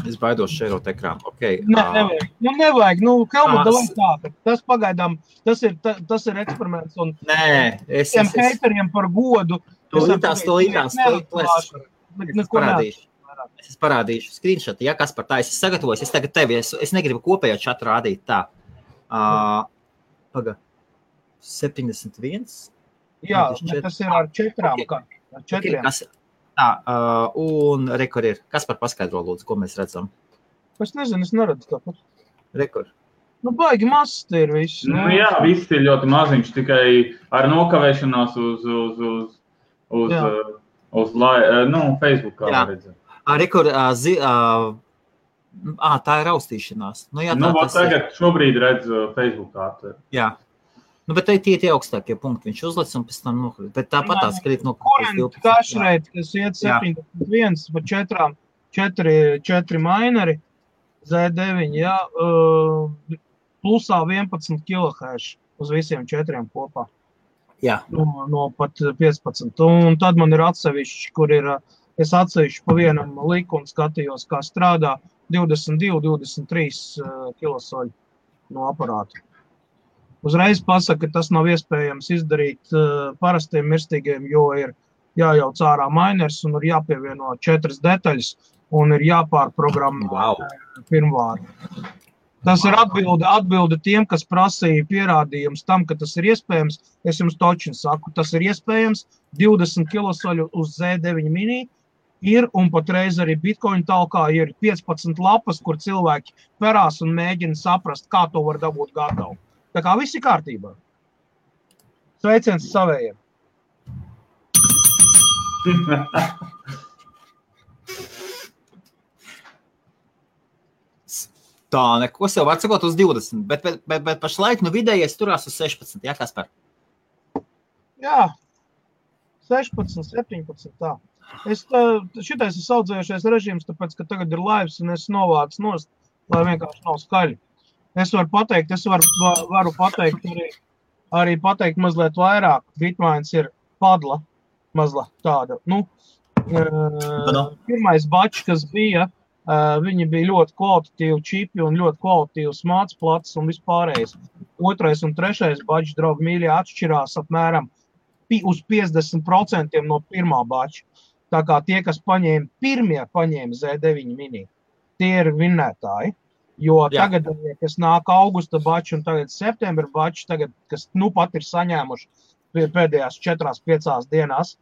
Es baidos šērot ekrānu. Okay. Nevajag. Helmut, davai tā. Tas pagaidām, tas ir eksperiments. Un nē, tiem hateriem par godu. Es parādīšu screenshot. Ja kas par tā, es sagatavoju, es tagad tevi, es negribu kopējo čatu rādīt tā. 71. Jā, tas ir ar 4. Okay. Un rekord ir. Kas par paskaidro lūdzu, ko mēs redzam? Es nezinu, es neredzu tāpat. Rekord. Baigi mazs te ir viss. Jā, viss ir ļoti maziņš, tikai ar nokavēšanās uz Facebookā redzam. Rekord, tā ir raustīšanās. Tagad šobrīd redz Facebookā. Jā. Bet tie augstākie punkti viņš uzlic un pēc tam nokrīt. Bet tāpat tās krīt no kurent kašreit, kas iet 71 pa 4 mineri, Z9, jā, plusā 11 kHz uz visiem 4 kopā. Jā. No pat 15. Un tad man ir atsevišķi, kur ir, es atsevišķi pa vienam liku un skatījos, kā strādā 22, 23 kilosoļu no aparāta. Uzreiz pasaka, ka tas nav iespējams izdarīt parastiem mirstīgiem, jo ir jājauc ārā miners un ir jāpievieno 4 detaļas un ir jāpārprogrammē pirmvāri. Tas ir atbilde tiem, kas prasīja pierādījums tam, ka tas ir iespējams. Es jums točin saku, tas ir iespējams. 20 kilosoļu uz Z9 mini ir, un patreiz arī Bitcoin talkā ir 15 lapas, kur cilvēki perās un mēģina saprast, kā to var dabūt gatavu. Tā kā viss ir kārtībā. Sveiciens savējiem. Tā, neko sev var sakot uz 20, bet pašlaik vidējais turās uz 16, jā, Kaspar? Jā, 16, 17, tā. Šitais ir saudzējušies režīms, tāpēc, ka tagad ir laivs un es novācu nost, lai vienkārši nav skaļi. Es varu pateikt arī pateikt mazliet vairāk. Bitmains ir padla mazliet tāda. Pirmais bačs, kas bija, viņi bija ļoti kvalitatīvi čipi un ļoti kvalitatīvs mācplats un vispārējais. Otrais un trešais bačs, draugi mīļie, atšķirās apmēram uz 50% no pirmā bača. Tā kā tie, kas paņēma Z9 mini, tie ir vinnētāji. Jo tagad, kas nāk augusta bači un tagad septembra bači, tagad, kas pat ir saņēmuši pēdējās 4-5 dienās,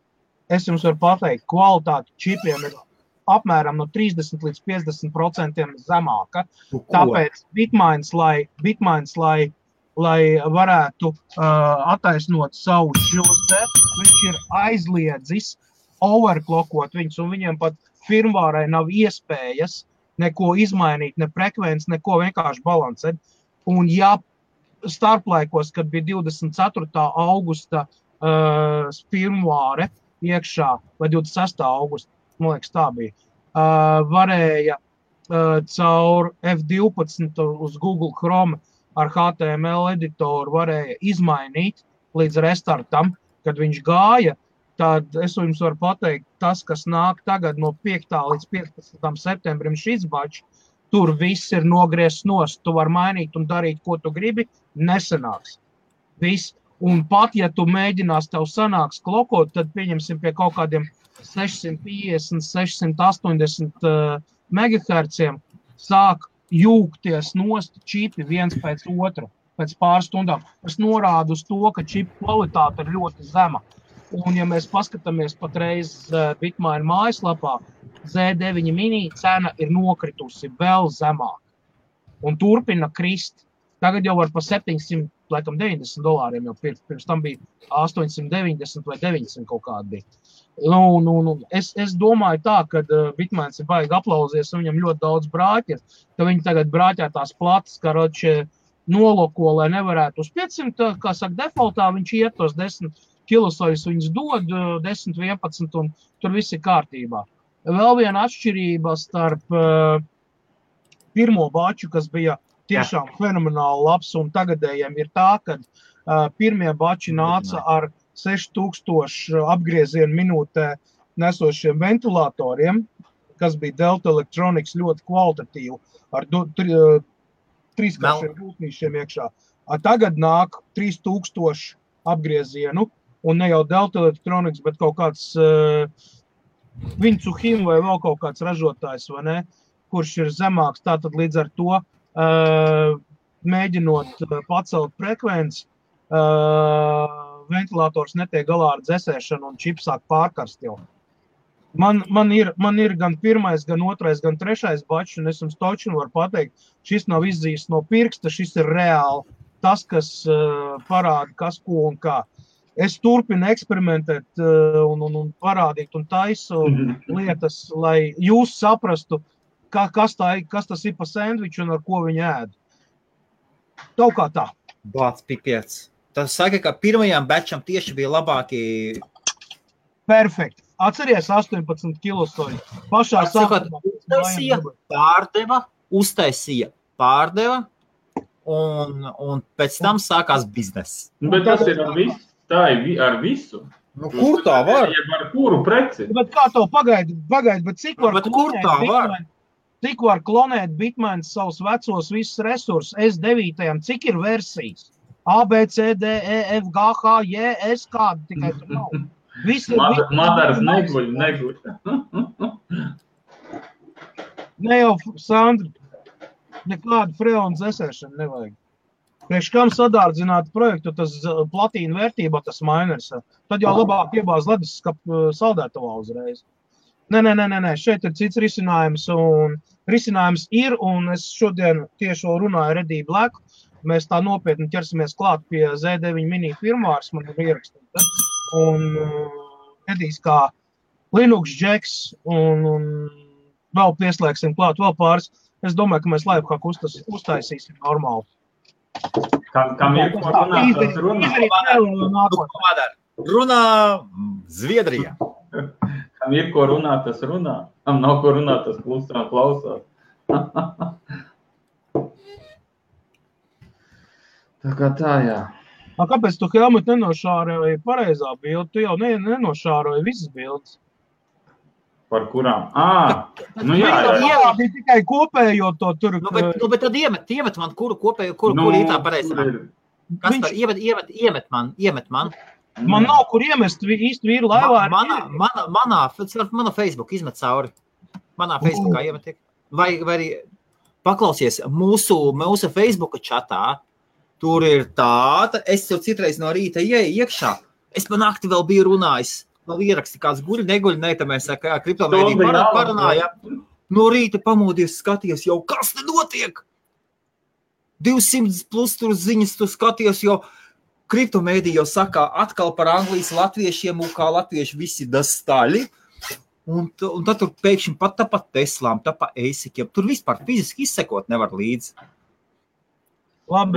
es jums varu pateikt, kvalitāte čipiem ir apmēram no 30 līdz 50% zemāka. Tāpēc Bitmains, lai varētu attaisnot savu šos te, viņš ir aizliedzis overclockot viņus, un viņiem pat firmvārai nav iespējas neko izmainīt, ne frekvenci, neko vienkārši balansēt. Un ja starplaikos, kad bija 24. augusta firmvāre iekšā, vai 26. augusta, man liekas tā bija, varēja caur F12 uz Google Chrome ar HTML editoru varēja izmainīt līdz restartam, kad viņš gāja, tad es jums varu pateikt, tas, kas nāk tagad no 5. līdz 15. septembrim šis bačs, tur viss ir nogriezts nost. Tu vari mainīt un darīt, ko tu gribi, nesanāks. Viss. Un pat, ja tu mēģinās tev sanāks klokot, tad pieņemsim pie kaut kādiem 650, 680 megaherciem sāk jūgties nost čipi viens pēc otra, pēc pāris stundām. Tas norāda uz to, ka čipu kvalitāte ir ļoti zema. Un, ja mēs paskatāmies patreiz Bitmain mājaslapā, Z9 mini cena ir nokritusi vēl zemāk un turpina krist. Tagad jau var pa $790 jau pirkt. Pirms tam bija 890 vai 900 kaut kādi bija. Es domāju tā, ka Bitmains ir baigi aplauzies un viņam ļoti daudz brāķi, ka viņi tagad brāķē tās platas, karoči noloko, lai nevarētu uz 500, kā saka, defaultā viņš iet tos 10 kilosojus, viņus dod 10, 11 un tur viss ir kārtībā. Vēl viena atšķirība starp pirmo baču, kas bija tiešām fenomenāli labs un tagadējiem ir tā, ka pirmie bači nāca ar 6000 apgriezienu minūtē nesošiem ventilatoriem, kas bija Delta Electronics ļoti kvalitatīvi, ar 3 gultnīšiem iekšā. Tagad nāk 3000 apgriezienu, un ne jau Delta Electronics, bet kaut kāds Vincuhim vai vēl kaut kāds ražotājs, vai ne, kurš ir zemāks. Tātad līdz ar to, mēģinot pacelt frekvenci, ventilators netiek galā ar dzesēšanu un čips sāk pārkarst jau. Man ir gan pirmais, gan otrais, gan trešais bačs, un es jums točinu varu pateikt, šis nav izzīsts no pirksta, šis ir reāli tas, kas parāda, kas ko un kā. Es turpinu eksperimentēt un parādīt un taisu lietas, lai jūs saprastu, kas tas ir pa sandviču un ar ko viņi ēd. Kaut kā tā. Bāc, pipiec. Tas saka, ka pirmajām batčam tieši bija labāki... Perfekt. Atceries 18 kilosoļi. Pašā sākumā. Uztaisīja, pārdeva, un pēc tam sākās bizness. Bet tas ir ar visu. Tā ir ar visu. Nu, kur tā var? Ar kuru preci? Bet kā to pagaidi, bet cik var klonēt Bitmains savus vecos visus resursus S9, cik ir versijas? A, B, C, D, E, F, G, H, J, S, kādi tikai tur nav. Madars neguļ. Ne jau, Sandri, nekādu freonu dzesēšanu nevajag. Priekš kam sadārdzināt projektu, tas platīna vērtībā, tas miners. Tad jau labāk iebāz leduskapa saldētavā uzreiz. Nē, šeit ir cits risinājums, un risinājums ir, un es šodien tieši runāju Redī Black. Mēs tā nopietni ķersimies klāt pie Z9 mini firmvārs, man ir ierakstīta. Un Redīs kā Linux Jacks, un vēl pieslēgsim klāt vēl pāris. Es domāju, ka mēs lifehack uztaisīsim normāli. Kam ir ko runāt, tas runā? Runā Zviedrijā. Kam ir ko runāt, tas runā. Kam nav ko runāt, tas klusā klausās. Tā kā tā, jā. Kāpēc tu, Helmut, nenošāroji pareizā bildi? Tu jau nenošāroji visas bildes. Par kurām? Nu jā. Bija tikai kopējo to tur. Nu, bet tad iemet man, kuru kopējo, kuru ir tā pareizā. Kaspar, iemet man. Man nav kur iemest īsti vīru laivā. Manā Facebook izmet cauri. Manā Facebookā iemet. Vai arī paklausies mūsu Facebooka čatā. Tur ir tāda, es jau citreiz no rīta iekšā. Es pa nakti vēl biju runājis. Vēl ieraksti kāds guļ, tad mēs kriptomēdiju parunājām. No rīta pamodies, skaties jau, kas te notiek? 200 plus tur ziņas, tu skaties jau, kriptomēdiju jau saka atkal par Anglijas latviešiem, un kā latvieši visi dastaļi. Un tad tur pēkšņi pat Teslām, pa Eisikiem. Tur vispār fiziski izsekot nevar līdzi. Labi,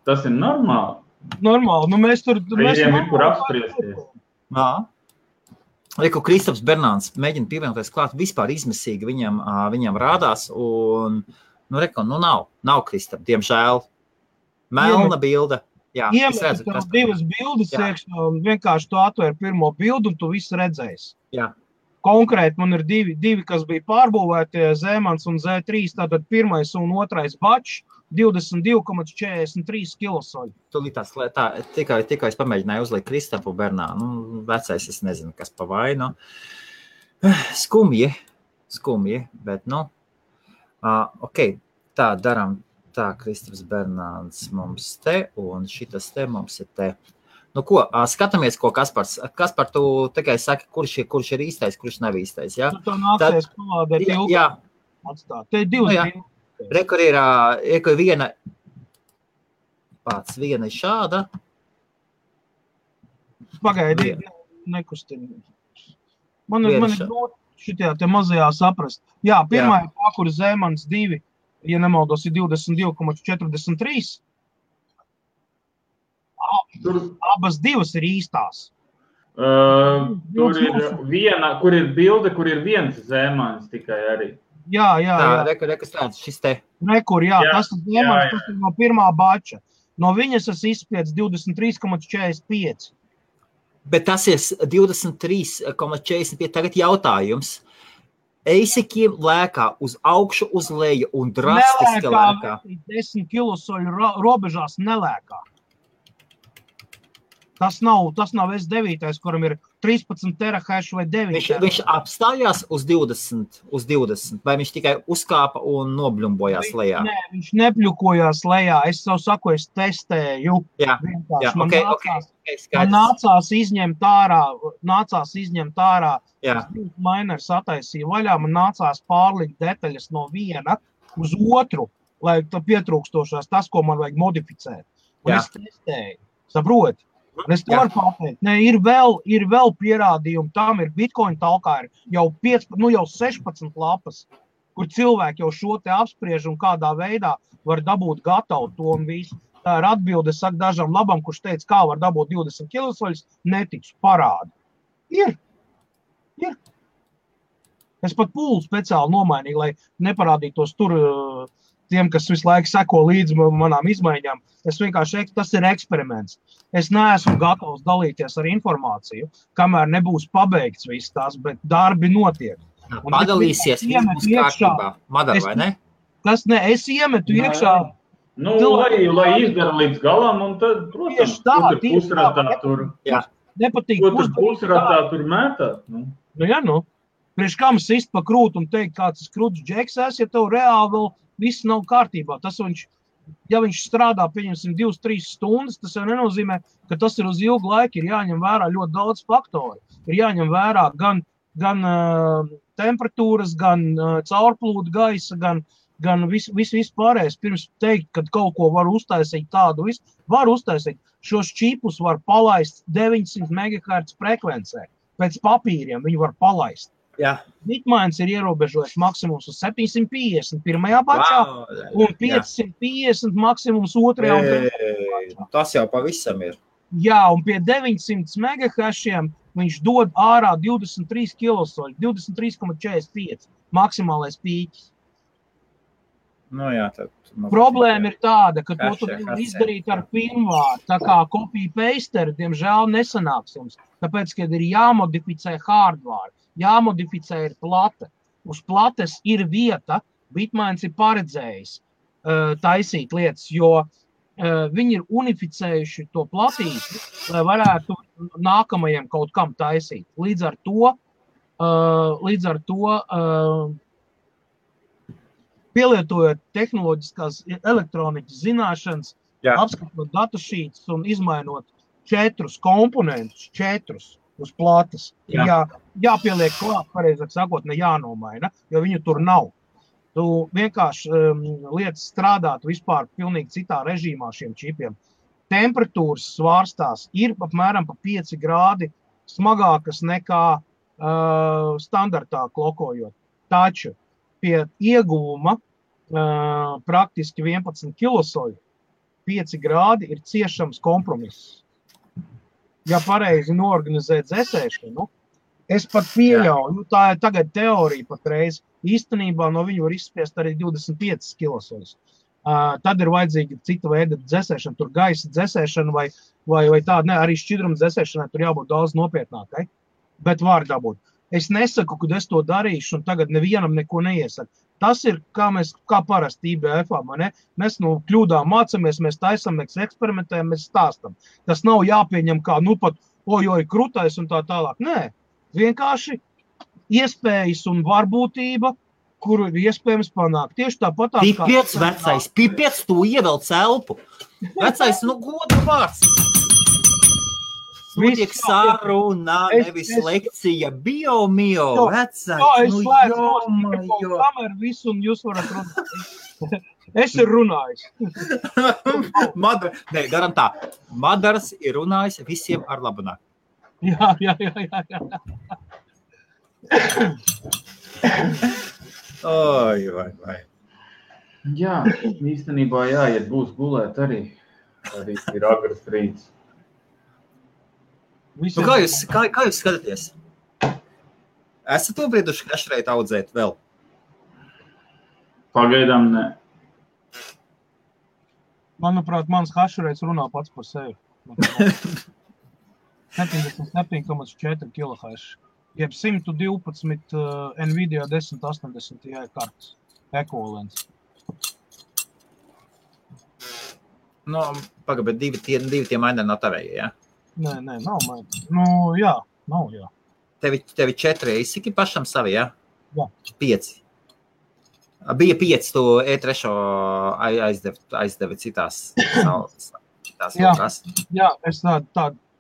tas ir normāli. Normāli, nu mēs tur... Viņiem ir kur apspriesties. Reku Kristaps Bernāns mēģina pievienoties klāt, vispār izmisīgi viņam rādās, un, nav Kristap, diemžēl. Melna bilde. Jā, iemet tev divas bildes iekšā un vienkārši tu atver pirmo bildu un tu visu redzēsi. Jā. Konkrēti man ir divi, kas bija pārbūvēti, Zemans un Z3, tātad pirmais un otrais bačs, 22,43 kilosoļi. Tūlītās, tikai es pamēģināju uzlikt Kristapu Bernā, vecais es nezinu, kas pa vainu. Skumji, bet, ok, tā daram. Tā, Kristaps Bernāns mums te, un šitas te mums ir te. Ko, skatāmies, ko Kaspars. Kaspar, tu tikai saki, kurš ir īstais, kurš nav īstais, jā? Tu nāksies palādēt ilgāk atstāt. Te ir divas. Rekur ir viena, viena ir šāda. Pagaidi, nekustini. Man ir grūti šitajā te mazajā saprast. Jā, pirmā ir tā, kur Zemans 2. Ja nemaldos, ir 22,43. Abas divas ir īstās. Tur ir viena, kur ir bilde, kur ir viens Zemans tikai arī. Jā. Rekur tāds, šis te. Rekur, jā. Tas ir Zemans, tas ir no pirmā bača. No viņas es izspiedzu 23,45. Bet tas ir 23,45. Tagad jautājums. Eisikiem lēkā uz augšu, uz leju un drastiski lēkā. 10 kilosoļu robežās nelēkā. Tas nav S9, kuram ir 13 terahash vai 9. Viņš apstājās uz 20, vai viņš tikai uzkāpa un nobļumbojās lejā? Nē, viņš nepļukojās lejā. Es savu saku, es testēju. Jā, man nācās izņemt ārā. Mainers attaisīja vaļā, man nācās pārlikt detaļas no viena uz otru, lai pietrūkstošās tas, ko man vajag modificēt. Un es testēju. Saproti? Un es to varu pateikt. Nē, ir vēl pierādījumi. Tam ir Bitcoin talkā ir jau 16 lapas, kur cilvēki jau šo te apspriež un kādā veidā var dabūt gatavu to un visu. Tā ir atbilde, saka dažam labam, kurš teica, kā var dabūt 20 kilosoļus, netiks parādi. Ir. Es pat pūlu speciāli nomainīju, lai neparādītos tur tiem, kas visu laiku seko līdzi manām izmaiņām. Es vienkārši, tas ir eksperiments. Es neesmu gatavs dalīties ar informāciju, kamēr nebūs pabeigts viss tās, bet darbi notiek. Padalīsies mums kārtībā. Madar, vai ne? Es iemetu iekšā. Lai izdara līdz galam, un tad, protams, tur pusratā tur. Nepatīk. Tur pusratā tur mētāt. Priekš kam sist pa krūtu un teikt, kāds tas krūts džeks ja tev reāli vēl viss nav kārtībā. Tas ja viņš strādā, pieņemsim, 2-3 stundas, tas jau nenozīmē, ka tas ir uz ilgu laiku. Ir jāņem vērā ļoti daudz faktori. Ir jāņem vērā gan temperatūras, gan caurplūdu gaisa, gan viss pārējais. Pirms teikt, kad kaut ko var uztaisīt tādu visu, var uztaisīt. Šos čipus var palaist 900 MHz frekvencē. Pēc papīriem viņi var palaist. Bitmains ir ierobežojis maksimums uz 750 pirmajā bačā un 550 maksimums otrajā un trešajā bačā. Tas jau pavisam ir. Jā, un pie 900 MHz viņš dod ārā 23 kilosoļi, 23,45 maksimālais pīķis. Problēma ir tāda, ka to tu nevar izdarīt ar firmvāru. Tā kā copy-pasteri, diemžēl, nesanāks jums. Tāpēc, kad ir jāmodificē hardware, jāmodificē ir plate. Uz plates ir vieta, Bitmains ir paredzējis taisīt lietas, jo viņi ir unificējuši to platīti, lai varētu nākamajiem kaut kam taisīt. Līdz ar to pielietojot tehnoloģiskās elektronikas zināšanas, apskatot datašītus un izmainot 4 komponentus, 4 uz plates. Jāpieliek klāt, pareizāk sakot, ne jānomaina, jo viņu tur nav. Tu vienkārši lietas strādāt vispār pilnīgi citā režīmā šiem čipiem. Temperatūras svārstās ir apmēram pa 5 grādi smagākas nekā standartā klokojot. Taču pie ieguvuma praktiski 11 kilosoļu 5 grādi ir ciešams kompromiss. Ja pareizi noorganizē dzēsēšanu, es pat pieļauju, tā ir tagad teorija patreiz, īstenībā no viņu var izspiest arī 25 kilosoļus. Tad ir vajadzīga cita veida dzesēšana, tur gaisa dzesēšana vai tāda, ne, arī šķidruma dzesēšanai tur jābūt daudz nopietnākai, bet var dabūt. Es nesaku, kad es to darīšu, un tagad nevienam neko neiesaku. Tas ir, kā parasti IBF-ā, ne? Mēs no kļūdām mācamies, mēs taisam, mēs eksperimentējam, mēs stāstam. Tas nav jāpieņem kā, pat, krutais un tā tālāk. Nē, vienkārši iespējas un varbūtība, kuru ir iespējams panākt. Tieši tāpat Pipiec, vecais, pipiec, tu ievēl celpu. Vecais, godu vārds. Notiek saruna, nevis lekcija, bio, vecais. Es slēdzu kameru visu, un jūs varat runāt. Es ir runājis. Garantā. Madars ir runājis visiem ar labunā. Jā. Oi, vai. Jā, īstenībā jāiet būs gulēt arī. Arī ir agras rīts. Kā jūs skatāties? Esat to brīduši kašreit audzēt vēl? Pagaidām ne. Manuprāt, mans hašreits runā pats par sevi. 77,4 kHz. Jeb 112 Nvidia 1080 Ti kartes ekvivalents. Pagaid, bet divi tie maini nav tavējie, jā? Nē, nav maini. Nav. Tevi 4 izsiki pašam savi, jā? Jā. 5. Bija 5, tu E3 aizdevi citās lokās. Jā, es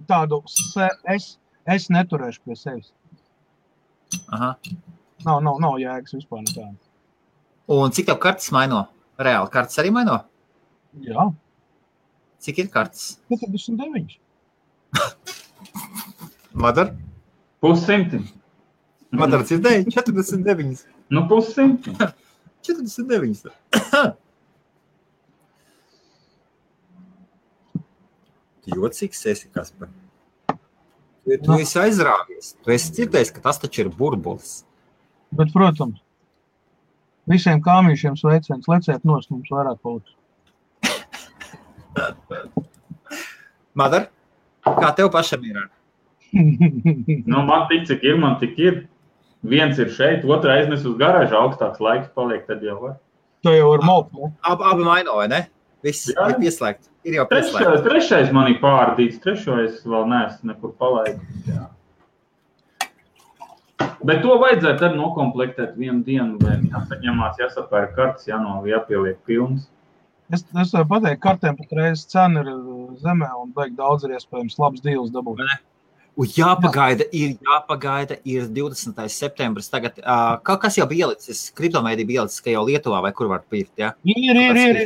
tādu es neturēšu pie sevis. Aha. Nav jēgas vispār nekāda. Un cik tev kartes maino? Reāli kartes arī maino? Jā. Cik ir kartes? 49. Madar? 100. Madar dzirdēja 49. 100. 49. Jocīgs esi, Kaspar. Tu esi aizrāvies. Tu esi dzirdējis, ka tas taču ir burbulis. Bet, protams, visiem kāmīšiem sveiciens, leciet nost, mums vairāk paliks. Madar, kā tev pašam ir? Man tik, cik ir, man tik ir. Viens ir šeit, otra aiznes uz garāžu, augstāks laiks paliek, tad jau var. To jau var maukt, ne? Abi maino, vai ne? Viss ir pieslēgt. Ir jau pieslēgt. Trešais man ir pārdīts, trešais vēl neesmu nekur palaidis. Jā. Bet to vajadzētu arī nokomplektēt vienu dienu, vai jāsaņemās, jāsapēr kartes, jāpieliek pilns. Es varu pateikt, kartēm patreiz cena ir zemē un beig daudz ir iespējams labs dīls dabūt. Jāpagaida, ir 20. septembris tagad. Kas jau bija ielicis? Kriptomēdija bija ielicis, ka jau Lietuvā vai kur var pirkt, jā? Ir.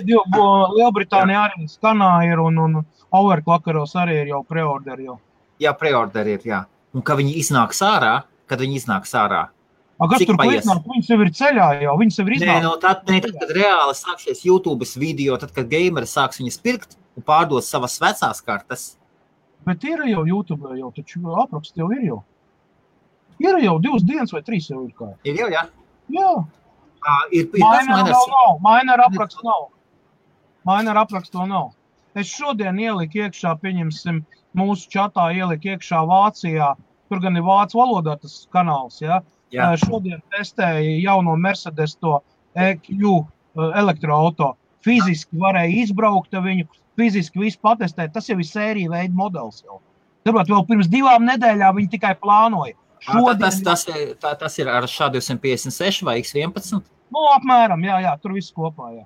Lielbritānija arī skanā ir un Overclockeros arī ir jau preorderi jau. Jā, preorderi ir, jā. Un kad viņi iznāks ārā, Kas tur iznāk? Viņas jau ir ceļā jau, viņas jau ir iznāk. Tad, kad reāli sāksies YouTube's video, tad, kad gameri sāks viņas pirkt un pārdos savas vecās kartes. Bet ir jau YouTube, jau taču apraksts jau ir jau. Ir jau 2 dienas vai 3 jau ir kā. Ir jau, jā? Jā. Mainer apraksts nav. Mainer apraksts to nav. Es šodien ieliku iekšā, pieņemsim, mūsu čatā ieliku iekšā Vācijā. Tur gan ir vācu valodā tas kanāls, jā? Jā. Šodien testēja jauno Mercedes to EQ elektroauto. Fiziski varēja izbraukt viņu, fiziski visu patestēt. Tas jau ir sērija veida modelis jau. Tāpēc vēl pirms 2 nedēļām viņi tikai plānoja. Tas ir ar SHA-256 vai X11? Apmēram, jā, tur viss kopā, jā.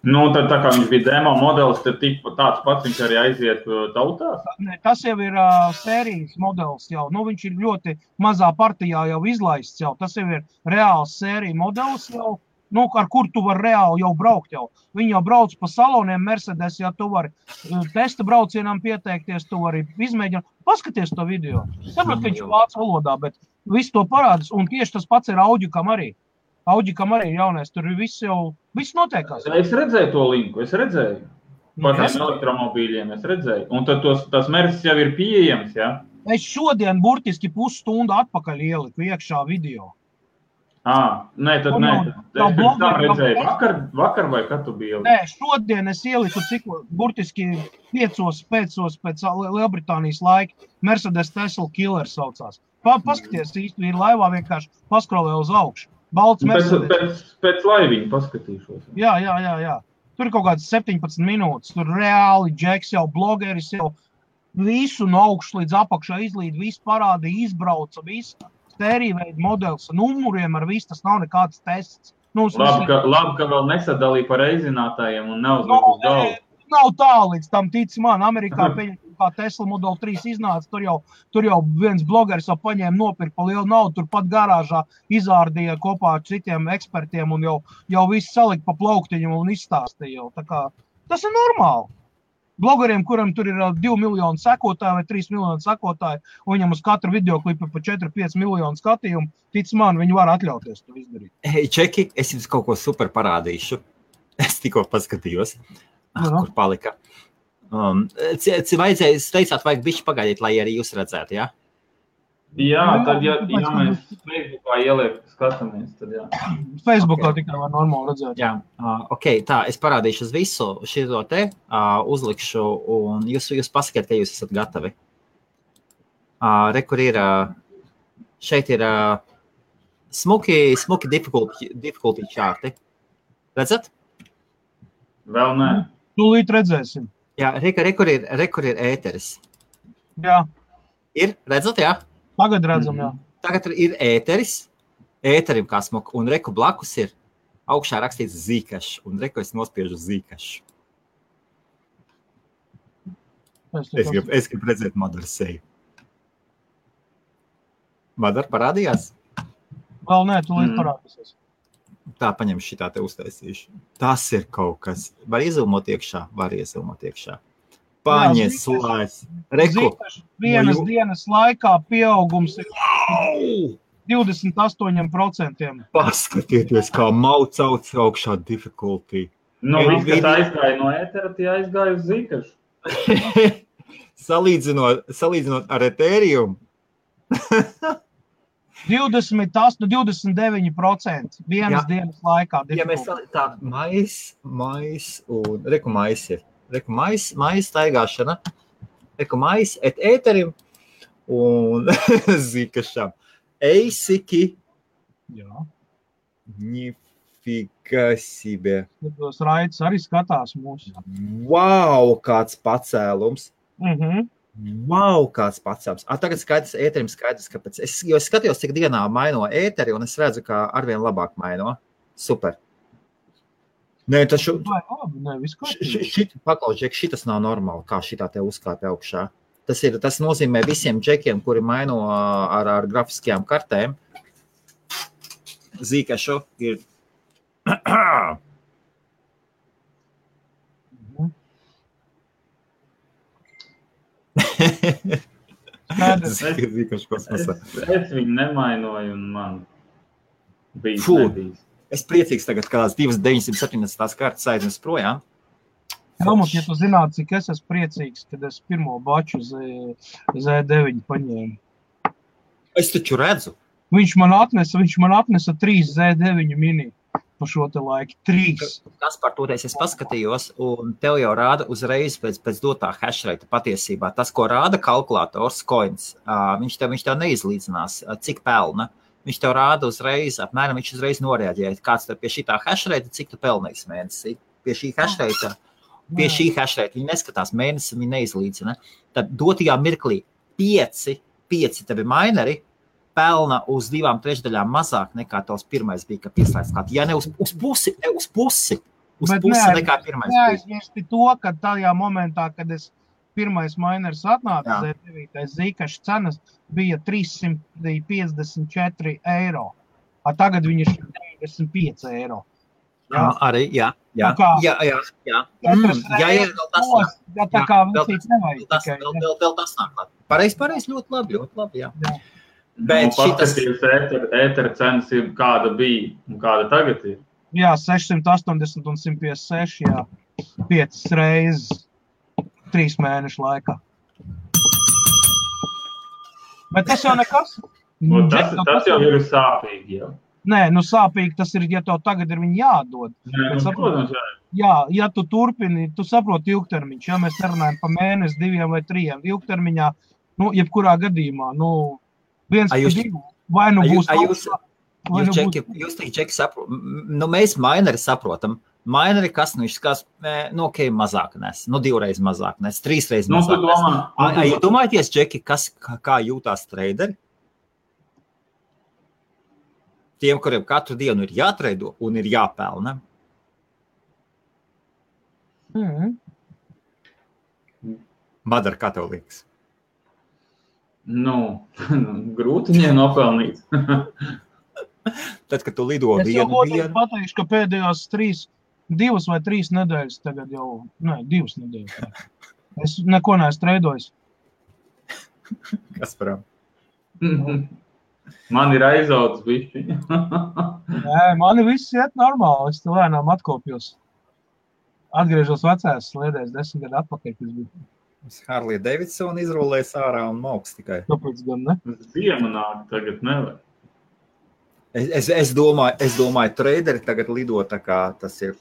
Tad tā kā viņš bija demo modelis, tad tāds pats viņš arī aiziet tautās? Tas jau ir sērijas modelis jau. Viņš ir ļoti mazā partijā jau izlaists jau. Tas jau ir reāls sērija modelis jau, ar kur tu vari reāli jau braukt jau. Viņi jau brauc pa saloniem Mercedes, ja tu vari testa braucienām pieteikties, tu vari izmēģināt. Paskaties to video. Saprot, ka viņš ir vācu valodā, bet viss to parādās. Un tieši tas pats ir Audikam arī. Audikam arī jaunais, tur viss notiekās. Es redzēju to linku, Par tiem elektromobīļiem es redzēju. Un tad tas Mercedes jau ir pieejams, jā? Es šodien burtiski pusstundu atpakaļ ieliku iekšā video. Nē, tad nē. Es pirms tam redzēju vakar vai kad tu biji? Nē, šodien es ieliku burtiski 5 pēc Lielbritānijas laika. Mercedes Tesla Killer saucās. Paskaties, īsti ir laivā vienkārši paskrolē uz augšu. Balts Mercedes. Pēc laiviņa paskatīšos. Jā. Tur ir kaut kāds 17 minūtes. Tur reāli Džeks jau blogeris jau visu no augšu līdz apakšā izlīd, visu parādīja, izbrauca, visu stērīveidu modelis ar numuriem, ar visu, tas nav nekāds tests. Labi, ka vēl nesadalīja par reizinātājiem un neuzliek uz galvu. Nav tā līdz tam tici man. Amerikā kā Tesla Model 3 iznāca, tur jau viens blogeris jau paņēma nopirkt pa lielu naudu, tur pat garāžā izārdīja kopā ar citiem ekspertiem un jau visu salika pa plauktiņu un izstāstīja jau. Tā kā tas ir normāli. Blogeriem, kuram tur ir 2 miljoni sekotāji vai 3 miljoni sekotāji, un viņam uz katru videoklipu pa 4-5 miljonu skatījumu, tic man, viņi var atļauties to izdarīt. Hei, Čeki, es jums kaut ko super parādīšu. Es tikko paskatījos, kur palika. Teicāt, vajag bišķi pagaidīt, lai arī jūs redzētu, jā? Jā, tad, ja mēs Facebookā ieliek skatāmies, tad jā. Facebookā tikai var normāli redzēt. Jā, tā, es parādīšu uz visu šito te, uzlikšu, un jūs pasakiet, ka jūs esat gatavi. Kur ir, šeit ir smuki difficulty čārti. Redzat? Vēl nē. Tūlīt redzēsim. Jā, kur ir ēteris. Jā. Ir, redzat, jā? Tagad redzam, jā. Tagad ir ēteris, ēterim kā smuka, un reku blakus ir augšā rakstīts Zcash, un reku es nospiežu Zcash. Es gribu redzēt Madaru seju. Madara parādījās? Vēl nē, tūlīt parādīsies. Tā, paņem šitā te uztaisīšu. Tas ir kaut kas. Var iezilmot iekšā? Var iezilmot iekšā. Paņies laiz. Reku. Vienas dienas laikā pieaugums ir 28%. Paskatieties, kā maucauts augšā difficulty. Viss, kas aizgāja no ētera, tie aizgāja uz Zcash. Salīdzinot ar Ethereum. 29% vienas dienas laikā. Ja mēs tā mais un reku mais ir. Reku mais staigāšana. Reku mais Ethereum un Zcasham. Eisiki. Jā. Nifika себе. Tos raids arī skatās mūsu. Wow, kāds pacēlums. Wow, kāds pacēlums. Tagad skaidrs, Ethereum skaidrs, kāpēc. Jo es skatījos, cik dienā maino Etheri, un es redzu, kā arvien labāk maino. Super. Nē, tas paklaus, šitas nav normāli, kā šitā te uzkāpja augšā. Tas nozīmē visiem džekiem, kuri maino ar grafiskajām kartēm. Zcashu ir... Es viņu nemainoju un man nebijis. Es priecīgs tagad, kādās 2,970 kartas aiznes projām. Helmut, ja tu zinātu, cik es esmu priecīgs, kad es pirmo baču Z9 paņēmu. Es taču redzu. Viņš man atnesa 3 Z9 mini pa šo te laiku. 3. Kas par to es paskatījos, un tev jau rāda uzreiz pēc dotā hashrate patiesībā. Tas, ko rāda kalkulators, coins, viņš tev neizlīdzinās, cik pelna. Viņš tev rāda uzreiz, apmēram viņš uzreiz noreaģēja. Kāds tev pie šitā hashrate, cik tu pelnīs mēnesī? Pie šī hashrate viņi neskatās mēnesi, viņi neizlīdzina. Tad dotajā mirklī 5 tevi mineri pelna uz 2/3 mazāk nekā tavs pirmais bija, ka pieslēdz klāt. Ja ne uz pusi nekā pirmais bija. Neaizmirsti to, ka tajā momentā, kad es pirmais miners atnāca, Zcash cenas bija 354 eiro. Tagad viņi ir 95 eiro. Jā, arī, jā. Jā. Tā kā visīts nevajag tikai. Vēl tas nāk klāt. Pareiz, ļoti labi, jā. Bet paskatījums ētera cenas ir kāda bija un kāda tagad ir? Jā, 680 un 156, jā. 5 reizes 3 mēnešu laikā. Bet tas jau nekas. Tas jau ir sāpīgi, jā. Nē, nu sāpīgi tas ir, ja tev tagad ir viņi jādod. Nē, Bet protams, ja tu turpini, tu saproti ilgtermiņš, ja mēs nerunājam pa mēnesi, 2 vai 3 ilgtermiņā, nu, jebkurā gadījumā, nu, 1 pa 2, vai nu būs augstā, vai nu būs... Jūs Čeki saprot, nu, mēs maineri saprotam. Maineri, kas, nu, viņš skās, nu, ok, mazāk nes, nu, 2 reizes mazāk nes, 3 reizes mazāk nes. Ja domājaties, Čeki, kā jūtās treideri? Tiem, kuriem katru dienu ir jātreido un ir jāpelna. Madar, kā tev liekas? Nu, grūti viņiem nopelnīt. Tad, kad tu lido vienu dienu... Es jau pateikšu, ka pēdējās 2 vai 3 nedēļas tagad jau... Nē, 2 nedēļas. Es neko neesmu treidojis. Kas param? Man ir aizaudzis bišķiņa. Nē, mani viss iet normāli. Es te lēnām atkopjos. Atgriežos vecās sliedēs 10 gadu atpakaļ, kas bija. Harley Davidson izrolēs ārā un mauks tikai. Tāpēc gan ne? Ziema nāk, tagad nevar. Es domāju, treideri tagad lido tā kā tas ir.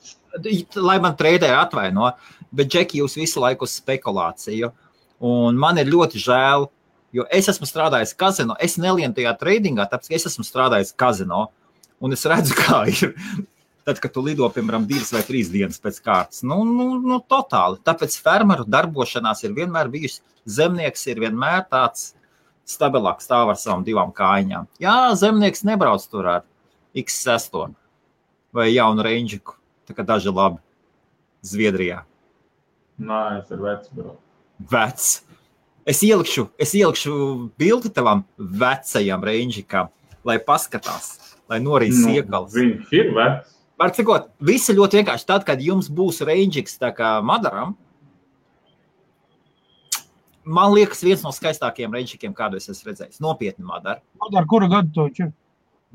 Lai man treideri atvaino, bet Džeki, jūs visu laiku uz spekulāciju. Un man ir ļoti žēl, jo es esmu strādājis kazino, es nelienu tajā treidingā, tāpēc es esmu strādājis kazino, un es redzu, kā ir. Tad, kad tu lido, piemēram, 2 vai 3 dienas pēc kārtas, nu totāli. Tāpēc fermeru darbošanās ir vienmēr bijusi, zemnieks ir vienmēr tāds stabilāk stāv ar savām 2 kājiņām. Jā, zemnieks nebrauc tur ar X6 vai jaunu Rangiku, tā kā daži labi Zviedrijā. Nē, es ar vecu braucu. Vecs. Es ielikšu bildi tavam vecajam Rangikam, lai paskatās, lai norīs iekals. Viņš ir vecs. Var cikot, visi ļoti vienkārši. Tad, kad jums būs Rangiks tā kā Madaram, man liekas viens no skaistākajiem Rangikiem, kādu es esmu redzējis. Nopietni Madar. Madar, kura gadu to viņš ir?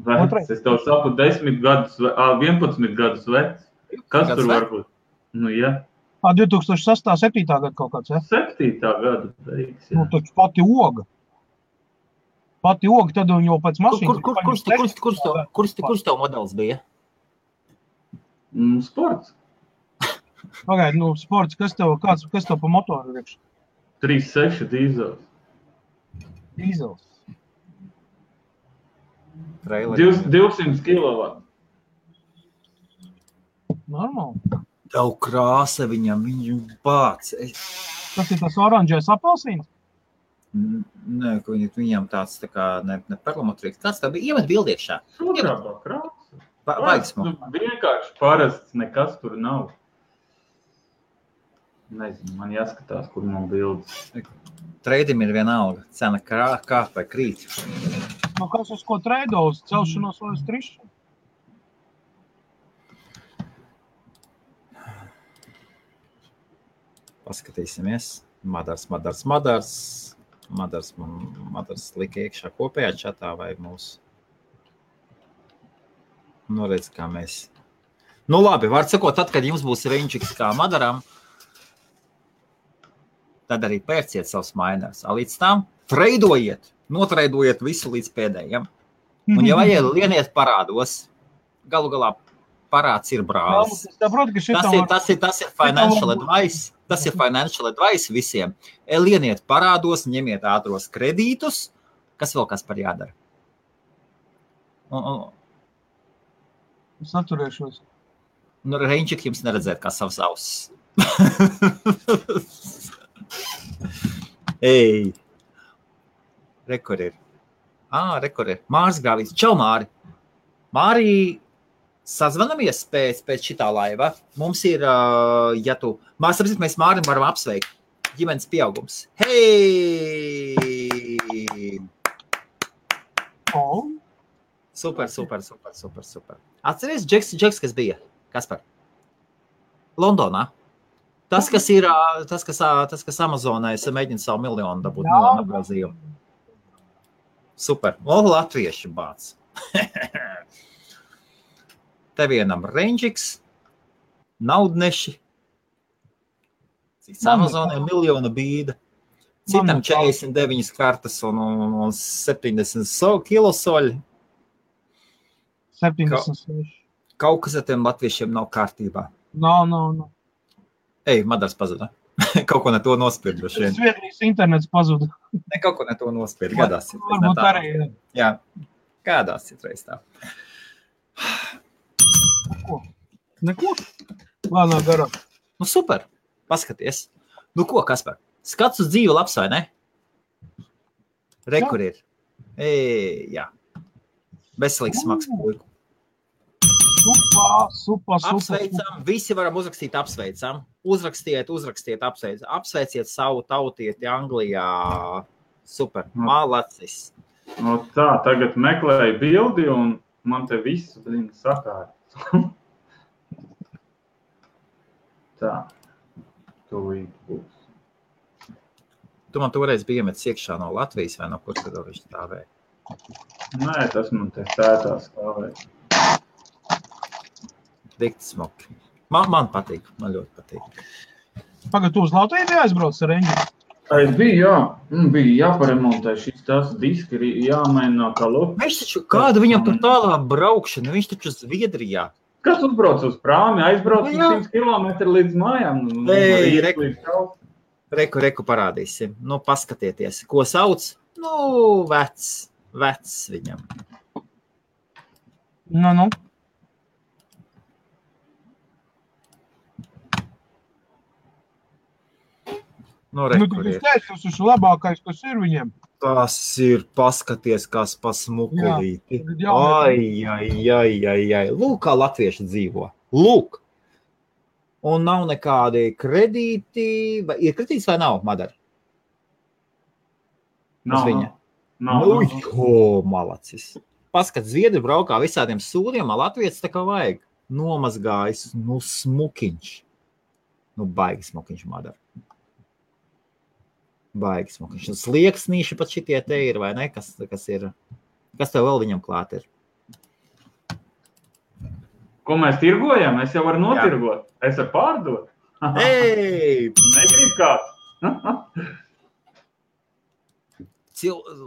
Vecs. Es tev saku 10 gadus, 11 gadus vecs. Kas tur var būt? Nu, jā. 2006. 7. gadu kaut kāds, ja? 7. gadu beigas, jā. Nu, taču pati oga. Pati oga, tad jau pēc mašīnas. Kurš tev modelis bija? Sports. Pagaid, nu, sports, kas tev pa motoru riekš? 3.6 dīzels. Dīzels. 200 kilovatu. Normāli. Tev krāsa viņam bāc. Tas ir tas oranžais apelsīns? Nē, viņam tāds tā kā ne perlamotrīgs. Kāds tā bija? Iemet bildiekšā. Sudraba krāsa. Baigsmu. Vienkārši parasts, nekas tur nav. Nezinu, man jāskatās, kur man bildes. Treidim ir vienalga. Cena kāp vai krīt. Nu, kas uz ko treido? Uz celšanos vai uz trišanu? Paskatīsimies. Madars lika iekšā kopējā čatā vai mūsu. Nu, redz, kā mēs. Nu, labi, var sakot, tad, kad jums būs Rangiks kā Madaram, tad arī pērciet savus mainers. Līdz tam notreidojiet visu līdz pēdējiem. Un, ja vajag, lieniet parādos. Galu galā parāds ir brālis. Tas ir financial advice. Tas ir financial advice visiem. Lieniet parādos, ņemiet ātros kredītus. Kas vēl kas par jādara? Es atturēšos. Nu, Rančik jums neredzēt kā savs ausis. Ei! Rekord ir. Rekord ir. Māris Grāvīts. Čau, Māri! Māri, sazvanamies pēc šitā laiva. Mums ir, ja tu... Mēs Mārim varam apsveikt. Ģimenes pieaugums. Hei! Oh. Super. Atceries, Džeks, kas bija? Kaspar? Londonā. Tas, kas Amazonā, es mēģinu savu miljonu dabūt nogrozījumu. Super. Latvieši bāc. Te vienam Rangiks, naudneši. Cits Amazonā miljona bīda. Citam 49 kartas un 70 kilosoļi. 76. Kaut kas ar tiem latviešiem nav kārtībā. Nav. Ej, Madars pazuda. Kaut ko ne to nospiedu. Zviedrijas internets pazuda. Ne, kaut ko ne to nospiedu. Gadās. Varbūt arī. Jā, gadās citreiz tā. Neko? Lēnā garā. Nu, super. Paskaties. Nu, ko, Kaspar? Skats uz dzīvi labs, vai ne? Re, kur ir. Jā. Veselīgs smags puiku. Super. Apsveicam. Visi varam uzrakstīt apsveicam. Uzrakstiet, apsveicam. Apsveiciet savu tautieti Anglijā. Super. Malacis. No tā, tagad meklēju bildi un man te viss sakārt. Tā. Tūlīt būs. Tu man toreiz bija iemetis iekšā no Latvijas vai no kur tad viņš stāvēja? Nē, tas man te sētā stāvēja. Dikti smuki. Man patīk, man ļoti patīk. Pagad, tu uz Latviju aizbrauc ar Renģi? Es biju, jā. Bija jāparemontē šis tas diski, jāmaina kā loku. Viņš taču, kāda viņam tur tālā braukšana? Viņš taču Zviedrijā. Kas uzbrauc uz prāmi? Aizbrauc uz 100 kilometri līdz mājām. Reku parādīsim. Nu, paskatieties. Ko sauc? Nu, vecs viņam. Nu. Nu, reku ir. Tas ir labākais, kas ir viņiem. Tas ir, paskaties, kas pa smukulīti. Jā. Ai. Lūk, kā latvieši dzīvo. Lūk. Un nav nekādi kredīti. Ir kredīts vai nav, Madara? Nav. Malacis. Paskat, Zviedri braukā visādiem sūdiem, Latvijas tā kā vajag. Nomazgājis, smukiņš. Baigi smukiņš, Madara. Baigi smukiņš. Slieksnīši pat šitie te ir, vai ne? Kas ir? Kas tev vēl viņam klāt ir? Ko mēs tirgojam? Es jau varu notirgot. Es varu pārdot. Ei! Negrib kāds.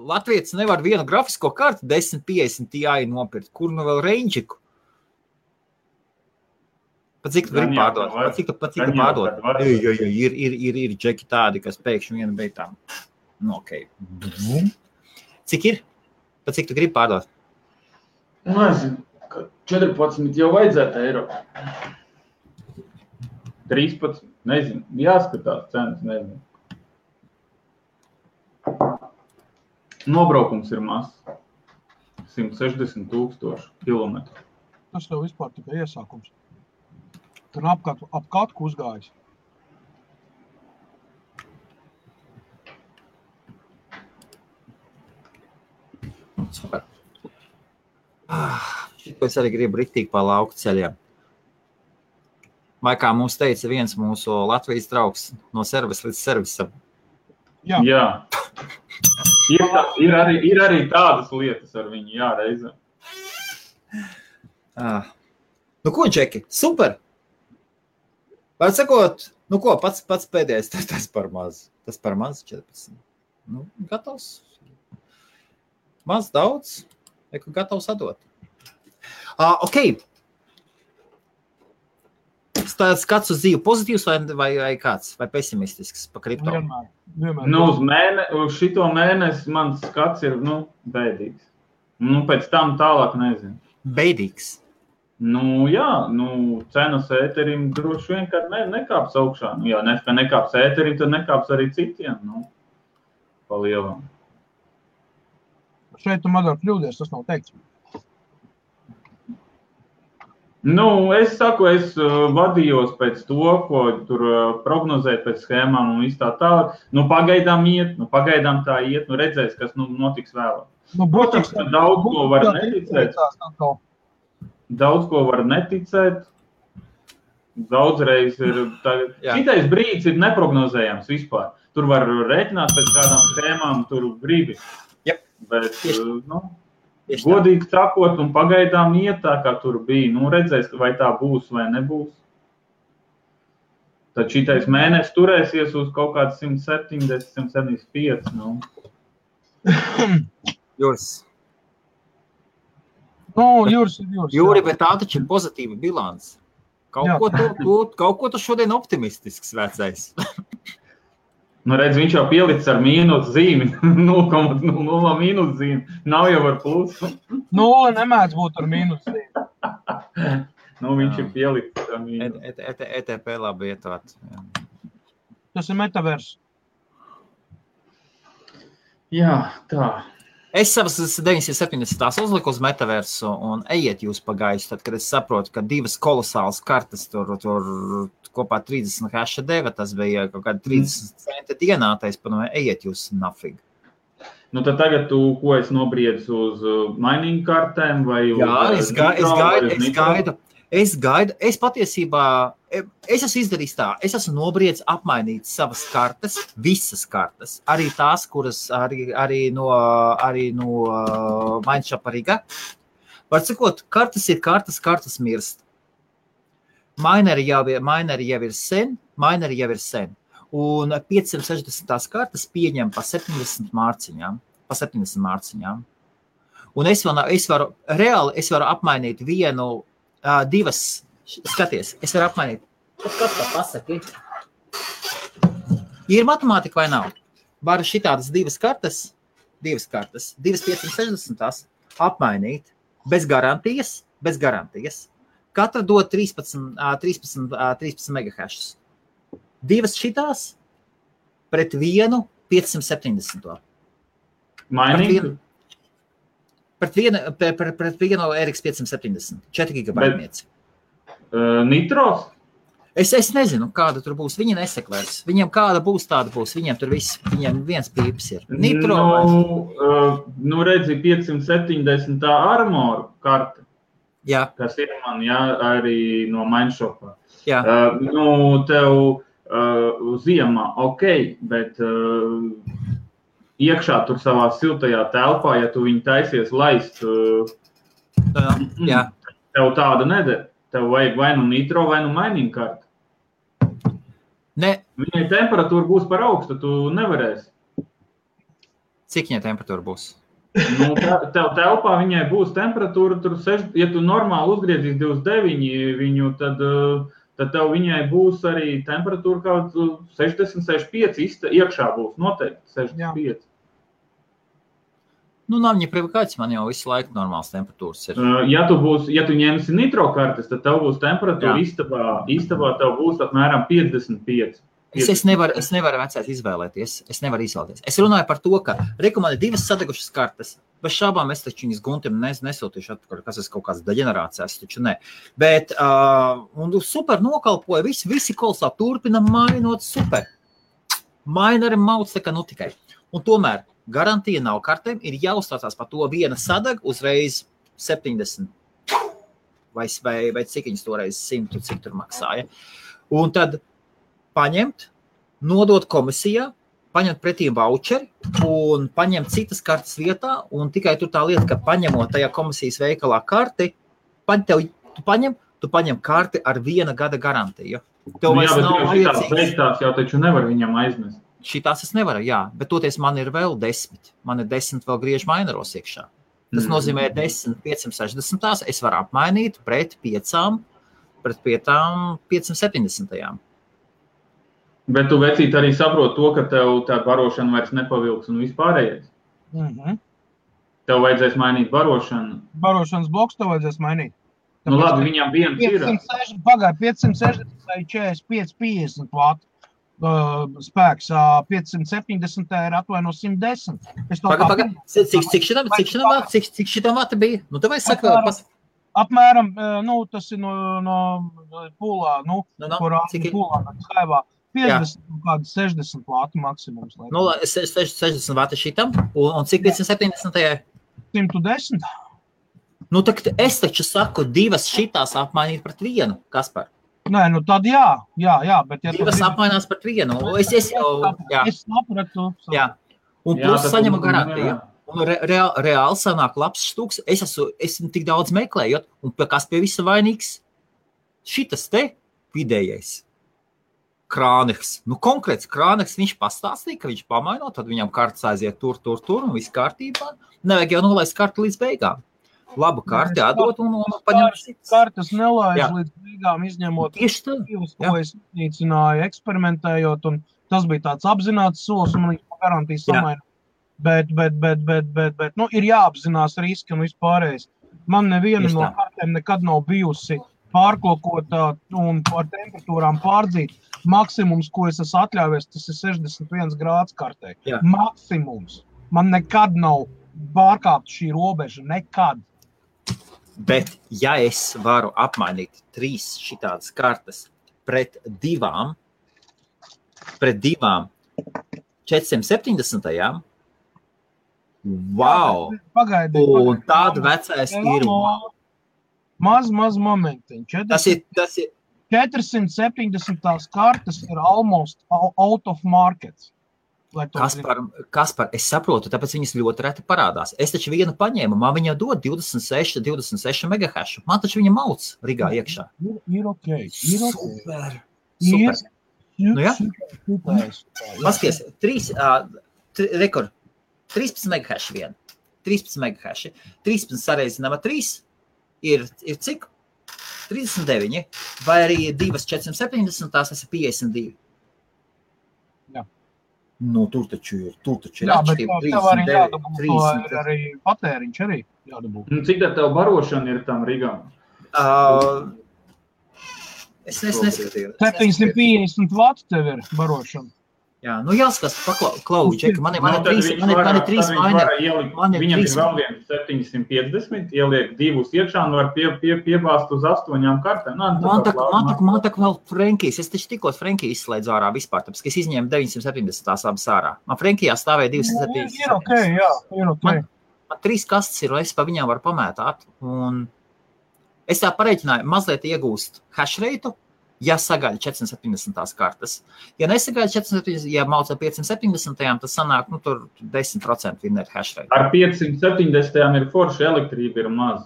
Latvijas nevar vienu grafisko kartu 1050 Ti nopirkt. Kur nu vēl Range'iku? Pat cik tu gribi pārdot? Pat cik tu pārdot? Ir džeki tādi, kas pēkšņi vienu beigtām. Nu, okei. Cik ir? Pat cik tu gribi pārdot? Nezinu, 14 jau vajadzētu eiro. 13, nezinu. Jāskatās cenas, nezinu. Nobraukums ir mazs. 160,000 kilometru. Tas tev vispār tikai iesākums. Tur ap katku uzgājis. Super. Šito es arī gribu riktīgi pa lauku ceļiem. Vai kā mums teica viens mūsu Latvijas draugs no servisa līdz servisam. Jā. Ir arī tādas lietas ar viņu, jā, reizē. Nu ko, Džeki? Super! Vai sakot, nu ko, pats pēdējais, tas par maz. Tas par maz 14. Nu, gatavs. Maz daudz, gatavs atdot. Ok. Skats uz dzīvi pozitīvs vai kāds? Vai pesimistisks pa kripto? Vienmēr. Nu, uz šito mēnesi mans skats ir, bēdīgs. Pēc tam tālāk nezinu. Bēdīgs? Jā, cenas ēterim droši vien, kad nekāps augšā. Ja nekāps ēterim, tad nekāps arī citiem, pa lielam. Šeit tu Madara kļūdies, tas nav teikts. Es saku, es vadījos pēc to, ko tur prognozēt pēc schēmām un viss tā tālāk. Pagaidām tā iet, redzēs, kas notiks vēlāk. Protams, ka daudz ko var neticēt. Daudz ko var neticēt. Daudzreiz ir... Šitais brīdis ir neprognozējams vispār. Tur var rēķināt pēc kādām schēmām, tur gribi. Yep. Bet, godīgi sakot, un pagaidām iet tā, kā tur bija. Redzēs, vai tā būs vai nebūs. Tad šitais mēnesis turēsies uz kaut kāds 170, 175. Jūs. Nu, Jūris. Jūri, bet tā taču ir pozitīva bilance. Kaut ko tu šodien optimistisks vecais. Nu, redz, viņš jau pielicis ar mīnus zīmi, 0,0 mīnus zīmi, nav jau ar plusu. 0 nemēdz būt ar mīnus zīmi. Nu, viņš ir pielicis ar mīnus. ETP labi ietvāt. Tas ir metavers. Jā, tā. Es savas 970 uzliku uz metaversu un ejiet jūs pagājuši, tad, kad es saprotu, ka divas kolosālas kartas tur kopā 30 haša deva, tas bija kaut kāda 30 centi dienā, tā es padomāju, ejiet jūs nafig. Nu, tad tagad tu, ko es nobriedzu uz mining kartēm vai uz... Jā, es gaidu. Es patiesībā, es esmu izdarījis tā, es esmu nobriedz apmainīt savas kartes, visas kartes, arī tās, kuras arī no Mindshop Riga. Var sakot, kartes ir kartes mirst. Mineri jau ir sen. Un 560 kartes pieņem pa 70 mārciņām. Un es varu apmainīt divas, skaties, es varu apmainīt. Kas tā pasaki? Ir matemātika vai nav? Varu šitādas divas kartes, divas 560 apmainīt bez garantijas. Katra dod 13 megahashus. Divas šitās pret vienu 570. Mining? Pret vienu RX 570, 4 gigabaitnieci. Nitros? Es nezinu, kāda tur būs. Viņi neseklēs. Viņiem kāda būs, tāda būs. Viņiem viens pīps ir. Nitro. Nu redzi, 570 armor karta. Jā. Kas ir man, jā, arī no Mindshopā. Jā. Tev ziemā, bet iekšā tur savā siltajā telpā, ja tu viņu taisies laist, Jā. Tev tāda neder. Tev vajag vai nu nitro, vai nu mining karta. Ne. Viņai temperatūra būs par augstu, tu nevarēsi. Cik viņai temperatūra būs? Nu, tev telpā viņai būs temperatūra, ja tu normāli uzgriezīs 29 viņu, tad tev viņai būs arī temperatūra kaut 60-65, iekšā būs noteikti 65. Jā. Nu, nav viņa privikāts, man jau visu laiku normāls temperatūras ir. Ja tu ņemsi nitro kartes, tad tev būs temperatūra istabā tev būs apmēram 55. Es nevaru vecais izvēlēties. Es runāju par to, ka man ir divas sadegušas kartes. Bez šābām es taču viņas Guntim nesūtīšu atpakaļ, kas ir kaut kāds deģenerācijas, taču ne. Bet un super nokalpoja, visi kolosā turpina mainot super. Maineri mauc tā kā nu tikai. Un tomēr garantija nav kartēm, ir jāuzstācās par to viena sadaga uzreiz 70 vai cik viņas toreiz 100, cik tur maksāja. Un tad paņemt, nodot komisijā, paņemt pretī voucheri un paņemt citas kartes vietā, un tikai tur tā lieta, ka paņemot tajā komisijas veikalā karti, tu paņem karti ar 1 gada garantiju. Tev vairs nav vajadzīgs. Šitās jau taču nevar viņam aizmest. Šitās es nevaru, jā, bet toties man ir vēl 10. Man ir 10 vēl griež maineros iekšā. Tas nozīmē 10 560, es varu apmainīt pret 5 570. Bet tu vecīt arī saproti to, ka tev tā barošana vairs nepavilks un vispārējais. Tev vajadzēs mainīt barošanu. Barošanas bloks tev vajadzēs mainīt. Nu labi, viņam viens ir. 560 vai 45, 50 vātu spēks, 570 ir atvaino 110. Cik šitam vāta bija? Nu, tev vajag saka, apmēram, tas ir no pūlā, kurā pūlā, skaivā. 50 kādi 60 vātu maksimums. 60 vāti šitam, un cik 570? 110. Nu, tad es taču saku, divas šitās apmainīt pret vienu, Kaspar. Nē, tad jā, bet ja divas apmainās pret vienu. Es sapratu. Jā. Un plus saņemu garantiju. Un reāli sanāk labs stūks. Es esmu tik daudz meklējot, un kas pie visa vainīgs? Šitas te vidējais. Krāneks. Nu, konkrēts Krāneks, viņš pastāstīja, ka viņš pamaino, tad viņam kartas aiziet tur, un viss kārtībā. Nevajag jau nolaist kartu līdz beigām. labu karti atdot un paņemt citas. Kartes nelaiž Jā. līdz beigām, izņemot Tieši tā. divas, Jā. ko es iznīcināju, eksperimentējot, un tas bija tāds apzināts solis, un man viņš garantīs Jā. samaina. Bet, nu, ir jāapzinās riski un vispārējais. Man neviena Tieši no tā. kartēm nekad nav bijusi pārklokota un par temperatūrām pārdzīt. Maksimums, ko es esmu atļāvies, tas ir 61 grāds kartē. Jā. Maksimums. Man nekad nav pārkāpt šī robeža. Nekad. Bet, ja es varu apmainīt 3 šitādas kartes pret divām 470. Wow! Pagaidi. Un tāda vecais ir. Maz momentiņ. Tas ir 470 kartes ir almost out of market. Kaspar, es saprotu, tāpēc viņas ļoti reti parādās. Es taču vienu paņēmu, man viņa dod 26 megahašu. Man taču viņa mauc Rigā iekšā. Ir ok. Super. Nu, jā. Paskaties, 13 megahaši vien. 13 megahaši. 13 sareizinām ar 3 ir cik? 39. Vai arī 2,470, tās ir 52. Jā. Nu, tur taču ir Jā, bet tev arī jādabū, 30. arī patēriņš arī jādabū. Cik tā tev barošana ir tam Rigām? Es neskatīju. 750 vati tev ir barošana. Jā, nu jāskatās, Klauži, Džeki, man ir 3 vaina. Viņam ir vēl viens 750, ieliek 2 iekšā un var piebāzt uz 8 kartēm. Man tak vēl Frenkijas, es taču tikko Frenkiju izslēdzu ārā vispār, tāpēc, ka es izņēmu 970 tās abas ārā. Man Frenkijā stāvēja 270. Ir ok, jā, ir ok. Man 3 kastes ir, un es pa viņām varu pamētāt. Un es tā pareiķināju, mazliet iegūst hash rate, ja sagaida 470 kartes. Ja nesagaida 470, ja mauca 570, tas sanāk, nu, tur 10% vinner hash rate. Ar 570 ir forši, elektrība ir maz.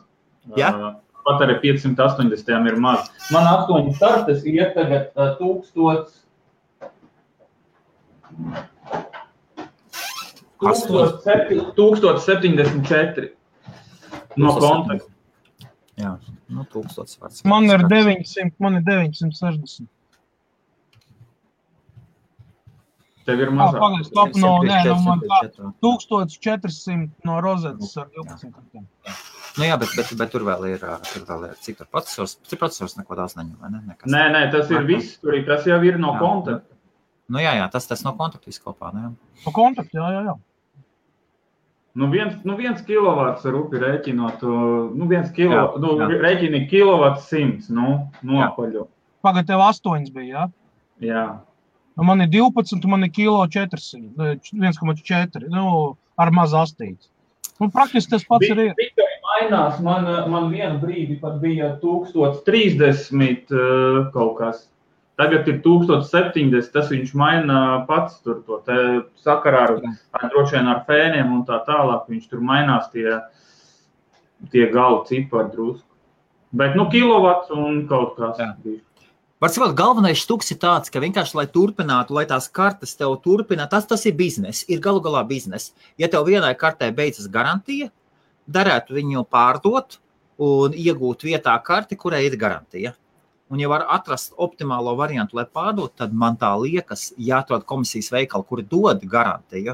Ja? Pat arī 580 ir maz. Man 8 kartes iet tagad 1074 no kontakta. Jā, nu 1000 vārds. Man ir 960. Tev ir mazāk. Stop, man 1400 no rozetes ar 12 kartēm. Nu jā, bet tur vēl ir cik tur procesors neko daudz neņem, vai ne? Nē, tas ir viss, tas jau ir no kontakta. Nu jā, tas no kontakta viskopā, ne? No kontakta, jā. Nu, 1 kilovats ar upi rēķinot, rēķini kilovats 100, nopaļo. Pagad, tev 8 bija, jā? Jā. Man ir 12, man ir kilo 400, 1,4, ar maz astīti. Praktiski tas pats ir. Tikai mainās, man vienu brīdi pat bija 1030 kaut kas. Tagad ir 1070, tas viņš maina pats tur to te sakarā droši vien ar fēniem un tā tālāk. Viņš tur mainās tie galu cipari drusku. Bet, kilovats un kaut kas. Var sakot, galvenais štuks ir tāds, ka vienkārši, lai turpinātu, lai tās kartes tev turpina, tas ir biznes, ir galu galā biznes. Ja tev vienai kartē beidzas garantija, darētu viņu pārdot un iegūt vietā karti, kurai ir garantija. Un, ja var atrast optimālo variantu, lai pārdot, tad man tā liekas, jāatrod komisijas veikali, kuri dod garantiju.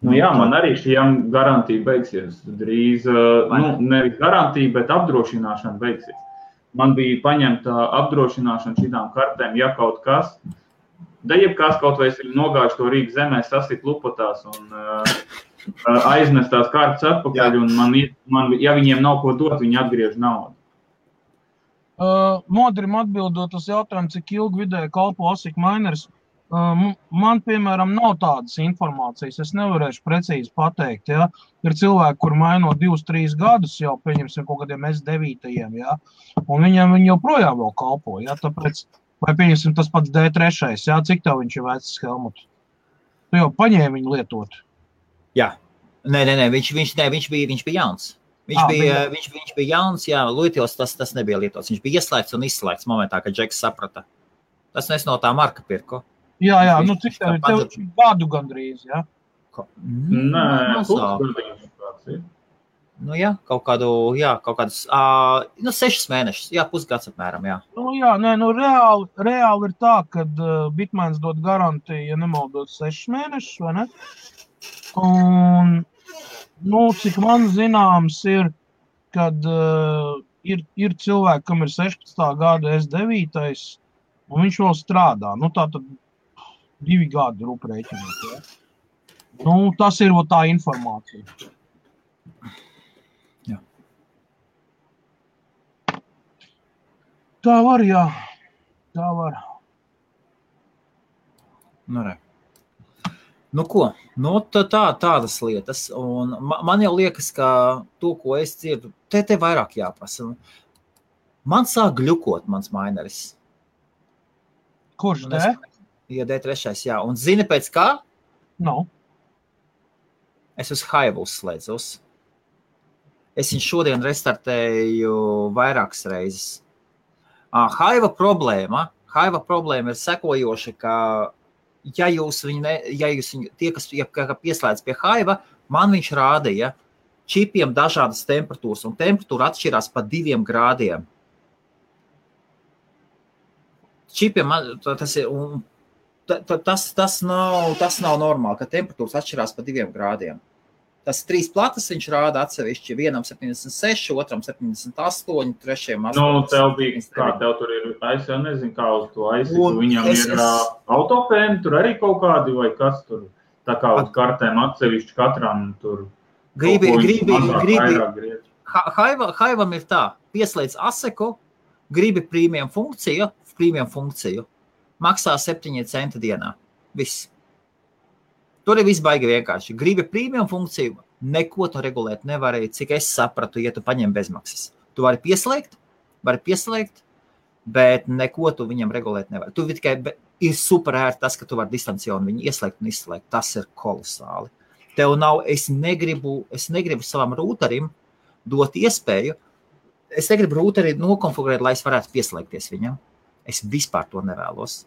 Nu jā, man arī šiem garantija beigsies. Drīz, nevis garantija, bet apdrošināšana beigsies. Man bija paņemta apdrošināšana šitām kartēm, ja kaut kas. Jebkās kaut vai es nogājuši to Rīgas zemē, sasit lupotās un aiznest tās kartes atpakaļ. Un ja viņiem nav ko dot, viņi atgriež naudu. Modrim atbildot uz jautājumu, cik ilgi vidēji kalpo ASIC mineris, man, piemēram, nav tādas informācijas. Es nevarēšu precīzi pateikt, ja. Ir cilvēki, kur maino 2-3 gadus jau, pieņemsim, kaut kādiem S9, ja. Un viņi joprojām vēl kalpo, ja. Tāpēc, vai pieņemsim tas pats D3, ja. Cik tev viņš ir vecs, Helmut? Tu jau paņēmi viņu lietot. Jā. Nē, viņš bija jauns. Viņš bija jauns, jā, Luitils tas nebija lietots. Viņš bija ieslēgts un izslēgts momentā, kad Džeks saprata. Tas es no tā marka pirku. Jā, cik tev gadu gandrīz, jā? Nē, pusgadījums kāds ir. Nu, jā, kaut kādus 6 mēnešus, pusgads apmēram, jā. Reāli ir tā, ka Bitmains dod garantiju, ja nemaldos 6 mēnešus, vai ne? Un, cik man zināms ir, kad ir cilvēki, kam ir 16. gada S9, un viņš vēl strādā. Tātad 2 gadi rūprēķinot, ja? Tas ir tā informācija. Tā var, jā. Tā var. Ko? Tādas lietas. Un man jau liekas, ka to, ko es dzirdu, te vairāk jāprasa. Man sāk gļukot mans maineris. Kurš te? Ja D3, jā. Un zini pēc kā? Es uz Hive uzslēdzos. Es viņu šodien restartēju vairākas reizes. Hive problēma ir sekojoša, ka tie, kas pieslēdz pie Hive, man viņš rādīja čipiem dažādas temperatūras, un temperatūra atšķirās pa 2 grādiem. Čipiem tas nav normāli, ka temperatūras atšķirās pa 2 grādiem. Tas 3 platas viņš rāda atsevišķi, vienam 76, otram 78, trešajam 80. Tev bija, kā tev tur ir, es jau nezinu, kā uz to aizsiku, viņam ir autopēni, tur arī kaut kādi, vai kas tur, tā kā uz kartēm atsevišķi katram tur. Gribi. Hive'am ir tā, pieslēdz ASIC-u, gribi premium funkciju, maksā 7 centi dienā. Viss. Tur ir viss baigi vienkārši. Gribi premium funkciju, neko tu regulēt nevarēji, cik es sapratu, ja tu paņem bezmaksas. Tu vari pieslēgt, bet neko tu viņam regulēt nevari. Tu tikai ir super ērti tas, ka tu vari distancionu viņu ieslēgt un izslēgt. Tas ir kolosāli. Tev nav, es negribu savam rūterim dot iespēju, es negribu rūteri nokonfigurēt, lai es varētu pieslēgties viņam. Es vispār to nevēlos.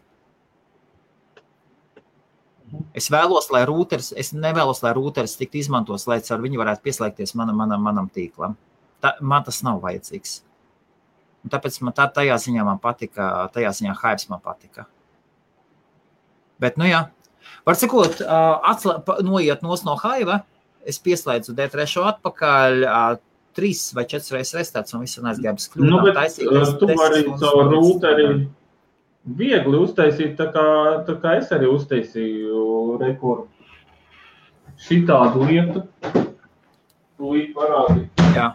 Es nevēlos, lai rūteris tiktu izmantos, lai ar viņu varētu pieslēgties manam tīklam. Man tas nav vajadzīgs. Un tāpēc man tajā ziņā man patika, Hives man patika. Bet, var sakot, noiet no Hive, es pieslēdzu D3 atpakaļ, 3 vai 4 reizes restarts un viss un aizgājums kļūdām. Tu vari savu rūteri viegli uztaisīt, tā kā es arī uztaisīju rekordu. Šitādu lietu. Tūlīt parādīt. Jā.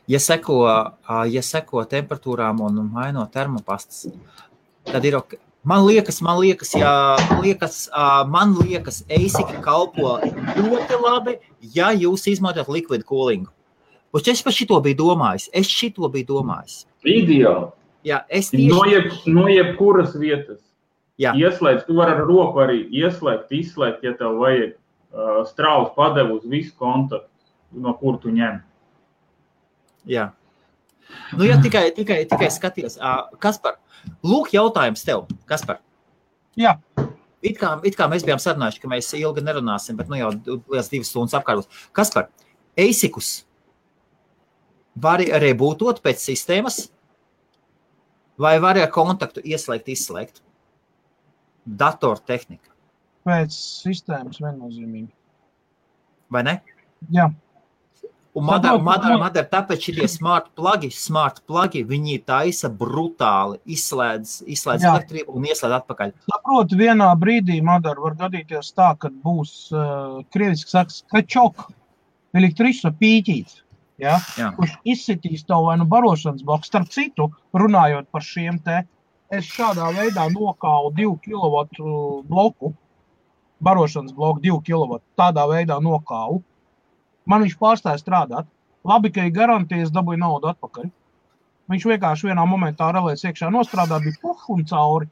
Ja seko temperatūrām un maino termopastas, tad ir ok. Man liekas, ASIC kalpo ļoti labi, ja jūs izmantojat liquid coolingu. Es par šito biju domājis. Ideāli. Jā, No jebkuras vietas. Jā. Ieslēdz, tu vari ar roku arī ieslēgt, izslēgt, ja tev vajag strauji padevu uz visu kontaktu, no kur tu ņem. Jā. Ja tikai skaties. Kaspar, lūk jautājums tev, Kaspar. Jā. It kā mēs bijām sarunājuši, ka mēs ilgi nerunāsim, bet jau liels 2 stundas apkārtos. Kaspar, ASIC-us var rebootot pēc sistēmas, vai var ar kontaktu ieslēgt, izslēgt? Datortehnika. Pēc sistēmas viennozīmīgi. Vai ne? Jā. Un Madara, tāpēc šitie smart plugi, viņi taisa brutāli, izslēdz elektrību un ieslēdz atpakaļ. Saprotu, vienā brīdī, Madara, var gadīties tā, kad būs, krieviski saka, skačok, elektriša pīķīts. Ja? Kurš izsitīs tev vai barošanas bloku. Starp citu, runājot par šiem te, es šādā veidā nokālu 2 kW bloku, barošanas bloku 2 kW, tādā veidā nokālu. Man viņš pārstāja strādāt. Labi, ka ir garantijas, dabūja naudu atpakaļ. Viņš vienkārši vienā momentā relēs iekšā nostrādā, bija un cauri.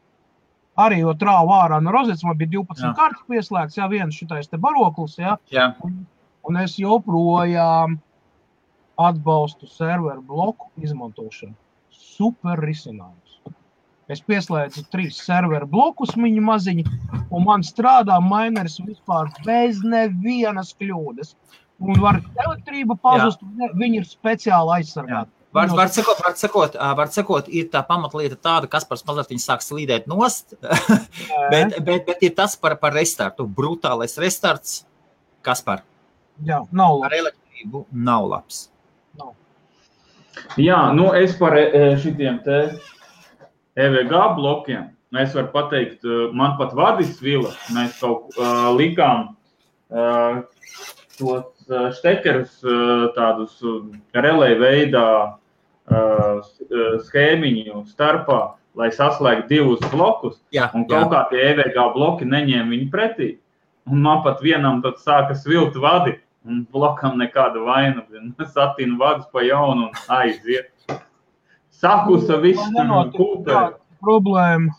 Arī jo trāva ārā no rozets, man bija 12 kartas pieslēgts, viens šitais te baroklis, un es joprojām atbalstu serveru bloku izmantošanu. Super risinājums. Es pieslēdzu 3 serveru blokus viņa maziņi, un man strādā mineris vispār bez nevienas kļūdas. Un var elektrība pazust, viņi ir speciāli aizsargāti. Var sakot, ir tā pamatlieta tāda, Kaspars mazliet viņi sāk slīdēt nost, bet ir tas par restartu. Brutālais restarts, Kaspar. Jā, nav labs. Ar elektrību nav labs. Nav. Jā, nu es par šitiem te EVG blokiem, es varu pateikt, man pat vadis vila, mēs kaut likām tos štekerus tādus relay veidā schēmiņu starpā, lai saslēgtu 2 blokus, un kaut kā tie EVG bloki neņēma viņu pretī. Un man pat vienam tad sāka svilt vadi, un blokam nekāda vaina, satīnu vadus pa jaunu un aiziet. Sakusa viss kūpē. Problēma.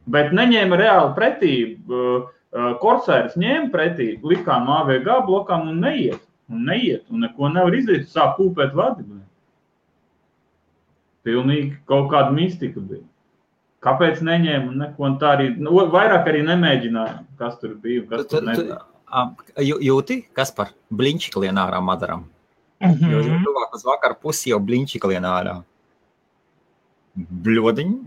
Bet neņēma reāli pretī. Korsairs ņēma pretī, likām AVG blokām un neiet. Un neko nevar izdarīt, sāk kūpēt vadi. Pilnīgi kaut kāda mistika bija. Kāpēc neņēma un neko un tā arī, vairāk arī nemēģināja, kas tur bija, kas tur nebija. Jūti, Kaspar, bliņčika lien ārā madaram? Jo tuvāk uz vakar pusi jau bliņčika lien ārā. Bļodiņi.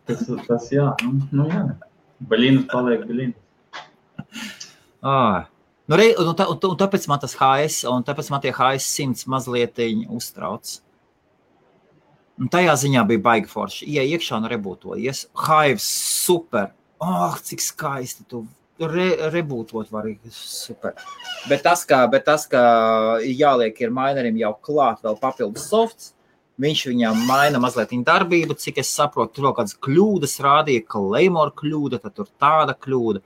Tas jā, nu jā. Baļīnas paliek baļīnas. Un tāpēc man tas HS, un tāpēc man tie HS100 mazlietiņi uztrauc. Un tajā ziņā bija baigi forši. Iekšā un rebūtojies. Hives super. Cik skaisti tu rebūtot var super. Bet tas, ka jāliek ir minerim jau klāt vēl papildus softs, viņš viņam maina mazliet darbību, cik es saprotu, tur vēl kādas kļūdas rādīja, Claymore kļūda, tad tur tāda kļūda.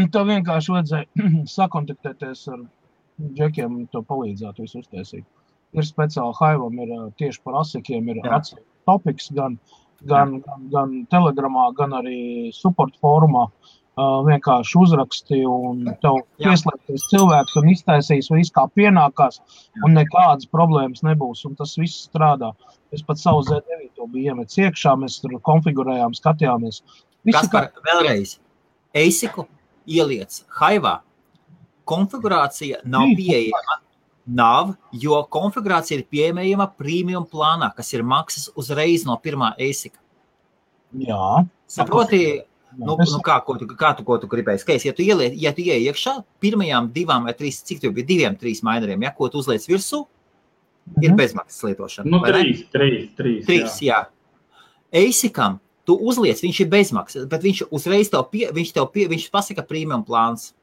Tev vienkārši vajadzēja sakontaktēties ar džekiem, to palīdzāt visu uztaisīt. Ir speciāli Hive'am, ir tieši par asikiem, ir topics gan Telegramā, gan arī support fórumā. Vienkārši uzraksti un tev pieslēgties cilvēks un iztaisīs visu kā pienākās un nekādas problēmas nebūs un tas viss strādā. Es pat savu Z9 biju iemets iekšā, mēs tur konfigurējām, skatījāmies. Kaspar, vēlreiz, ASIC-u ieliec Hive'ā, konfigurācija nav pieejama. Nav, jo konfigurācija ir pieejama premium plānā, kas ir maksas uzreiz no pirmā ASIC-a. Jā. Saproti, kā tu gribēji skaist, ja tu ieej iekšā, pirmajām 2 vai 3, cik tu bija 2, 3 mineriem, ko tu uzliec virsū, ir bezmaksas lietošana. Nu, 3, jā. ASIC-am tu uzliec, viņš ir bezmaksas, bet viņš uzreiz viņš pasaka premium plāns.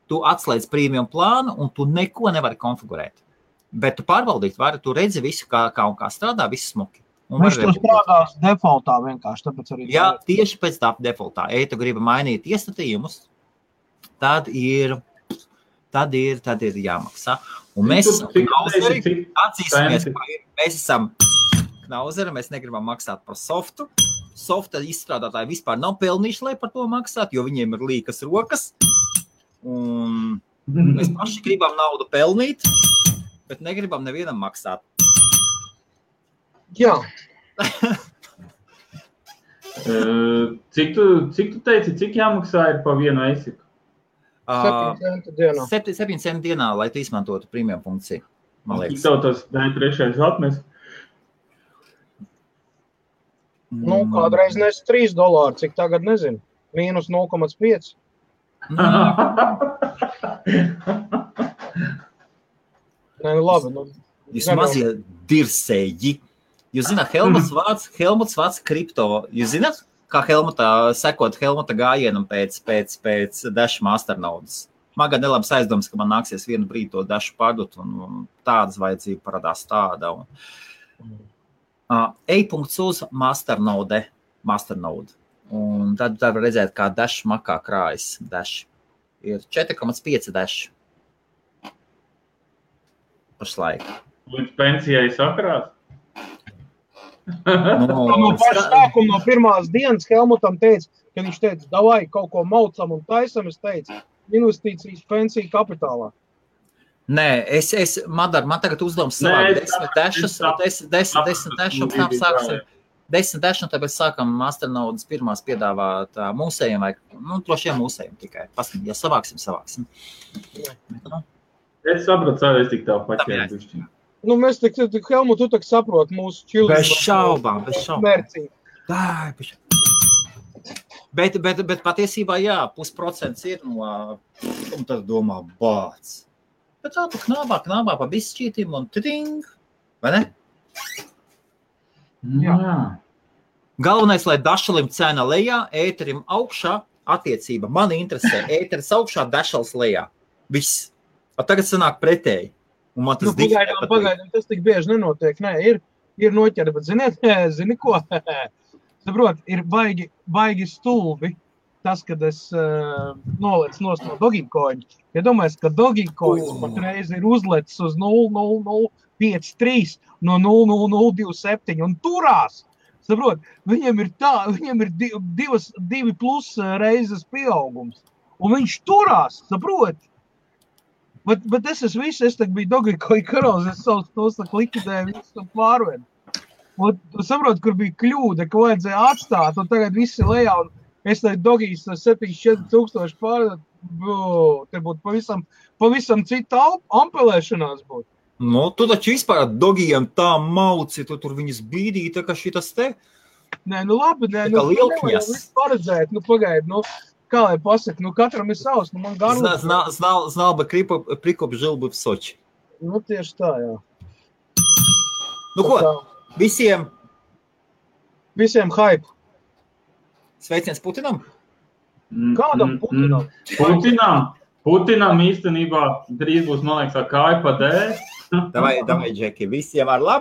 Tu atslēdz premium plānu un tu neko nevari konfigurēt. Bet tu pārbaudīt vari, tu redzi visu, kā strādā, viss smuki. Viņš to strādās defaultā vienkārši, tāpēc arī... Jā, tieši pēc tā defaultā. Ja tu gribi mainīt iestatījumus, tad ir jāmaksā. Un mēs atzīsimies, mēs esam knauzeri, mēs negribam maksāt par softu. Softa izstrādātāji vispār nav pelnījuši, lai par to maksāt, jo viņiem ir līkas rokas. Un mēs paši gribam naudu pelnīt, bet negribam nevienam maksāt. Jā. Cik tu teici, cik jāmaksā ir pa vienu ASIC? 7 centi dienā. 7 centi dienā, lai tu izmantotu premium funkciju. Cik tev tas trešais atmes? Nu, kādreiz nes $3, cik tagad nezinu. Mīnus 0,5. Nē, labi. Jūs mazie dirsēji. Jūs zināt, Helmuts vāc kripto. Jūs zināt, kā sekot Helmuta gājienam pēc Dash Master naudas? Man gan nelabs aizdoms, ka man nāksies vienu brīdi to Dash pārdot, un tādas vajadzība parādās tāda. E-punkts uz Master Node. Un tad var redzēt, kā Dash makā krājas. Dash ir 4,5 Dash. Pašlaik. Līdz pensijai sakrās? No paša sākuma, no pirmās dienas Helmutam teica, ka viņš teica, davai kaut ko maucam un taisam, es teicu, investīcijas pensiju kapitālā. Nē, Madar, man tagad uzdevums savāk 10 dašu, tam sāksim 10 dašu, un tāpēc sākam Masternaudas pirmās piedāvāt mūsējiem, vai, droši vien mūsējiem tikai. Paskat, ja savāksim. Es sapratu, es tik tā paķēru. Mēs tik Helmut, tu tak saproti mūsu čildu. Bez šaubām. Mērcīgi. Bet patiesībā, jā, 0,5% ir no, un tad domā, bāc. Bet tā knābā pa bišķītim un tiding, vai ne? Jā. Galvenais, lai dašalim cena lejā, ēterim augšā, attiecība. Mani interesē, ēteris augšā, dašals lejā. Viss. A tagad sanāk pretēji. Un man tas pagaidām, tas tik bieži nenotiek. Nē, ir noķeri, bet zini ko? Saprot, ir baigi stulbi tas, kad es nolec no Dogecoin. Ja domājies, ka Dogecoin patreiz ir uzlecis uz 0,0053 no 0,0027 un turās. Saprot, viņiem ir 2 plus reizes pieaugums. Un viņš turās, saprot? Bet es biju Dogecoin karalis, es savus tos likvidēju, visu pārved. Un tu saprot, kur bija kļūda, ka vajadzēja atstāt, un tagad visi lejā, un es teicu, Dogijs 74,000 pārved, te būtu pavisam cita ampelēšanās būtu. Tu taču vispār Dogijam tā mauci, tu tur viņus bīdīji, tā kā šitas te? Nē, labi, lielkņas. Paredzēt, pagaid, kā lai pasaka, katram ir savs, man garlīgs. Знал бы прикоп, жил бы в Сочи. Tieši tā, jā. Ko? Visiem hype. Sveiciens Putinam? Kādam Putinam? Putinam īstenībā drīz būs, man liekas, kāja pa D. Davai, Džeki, visiem ar labu.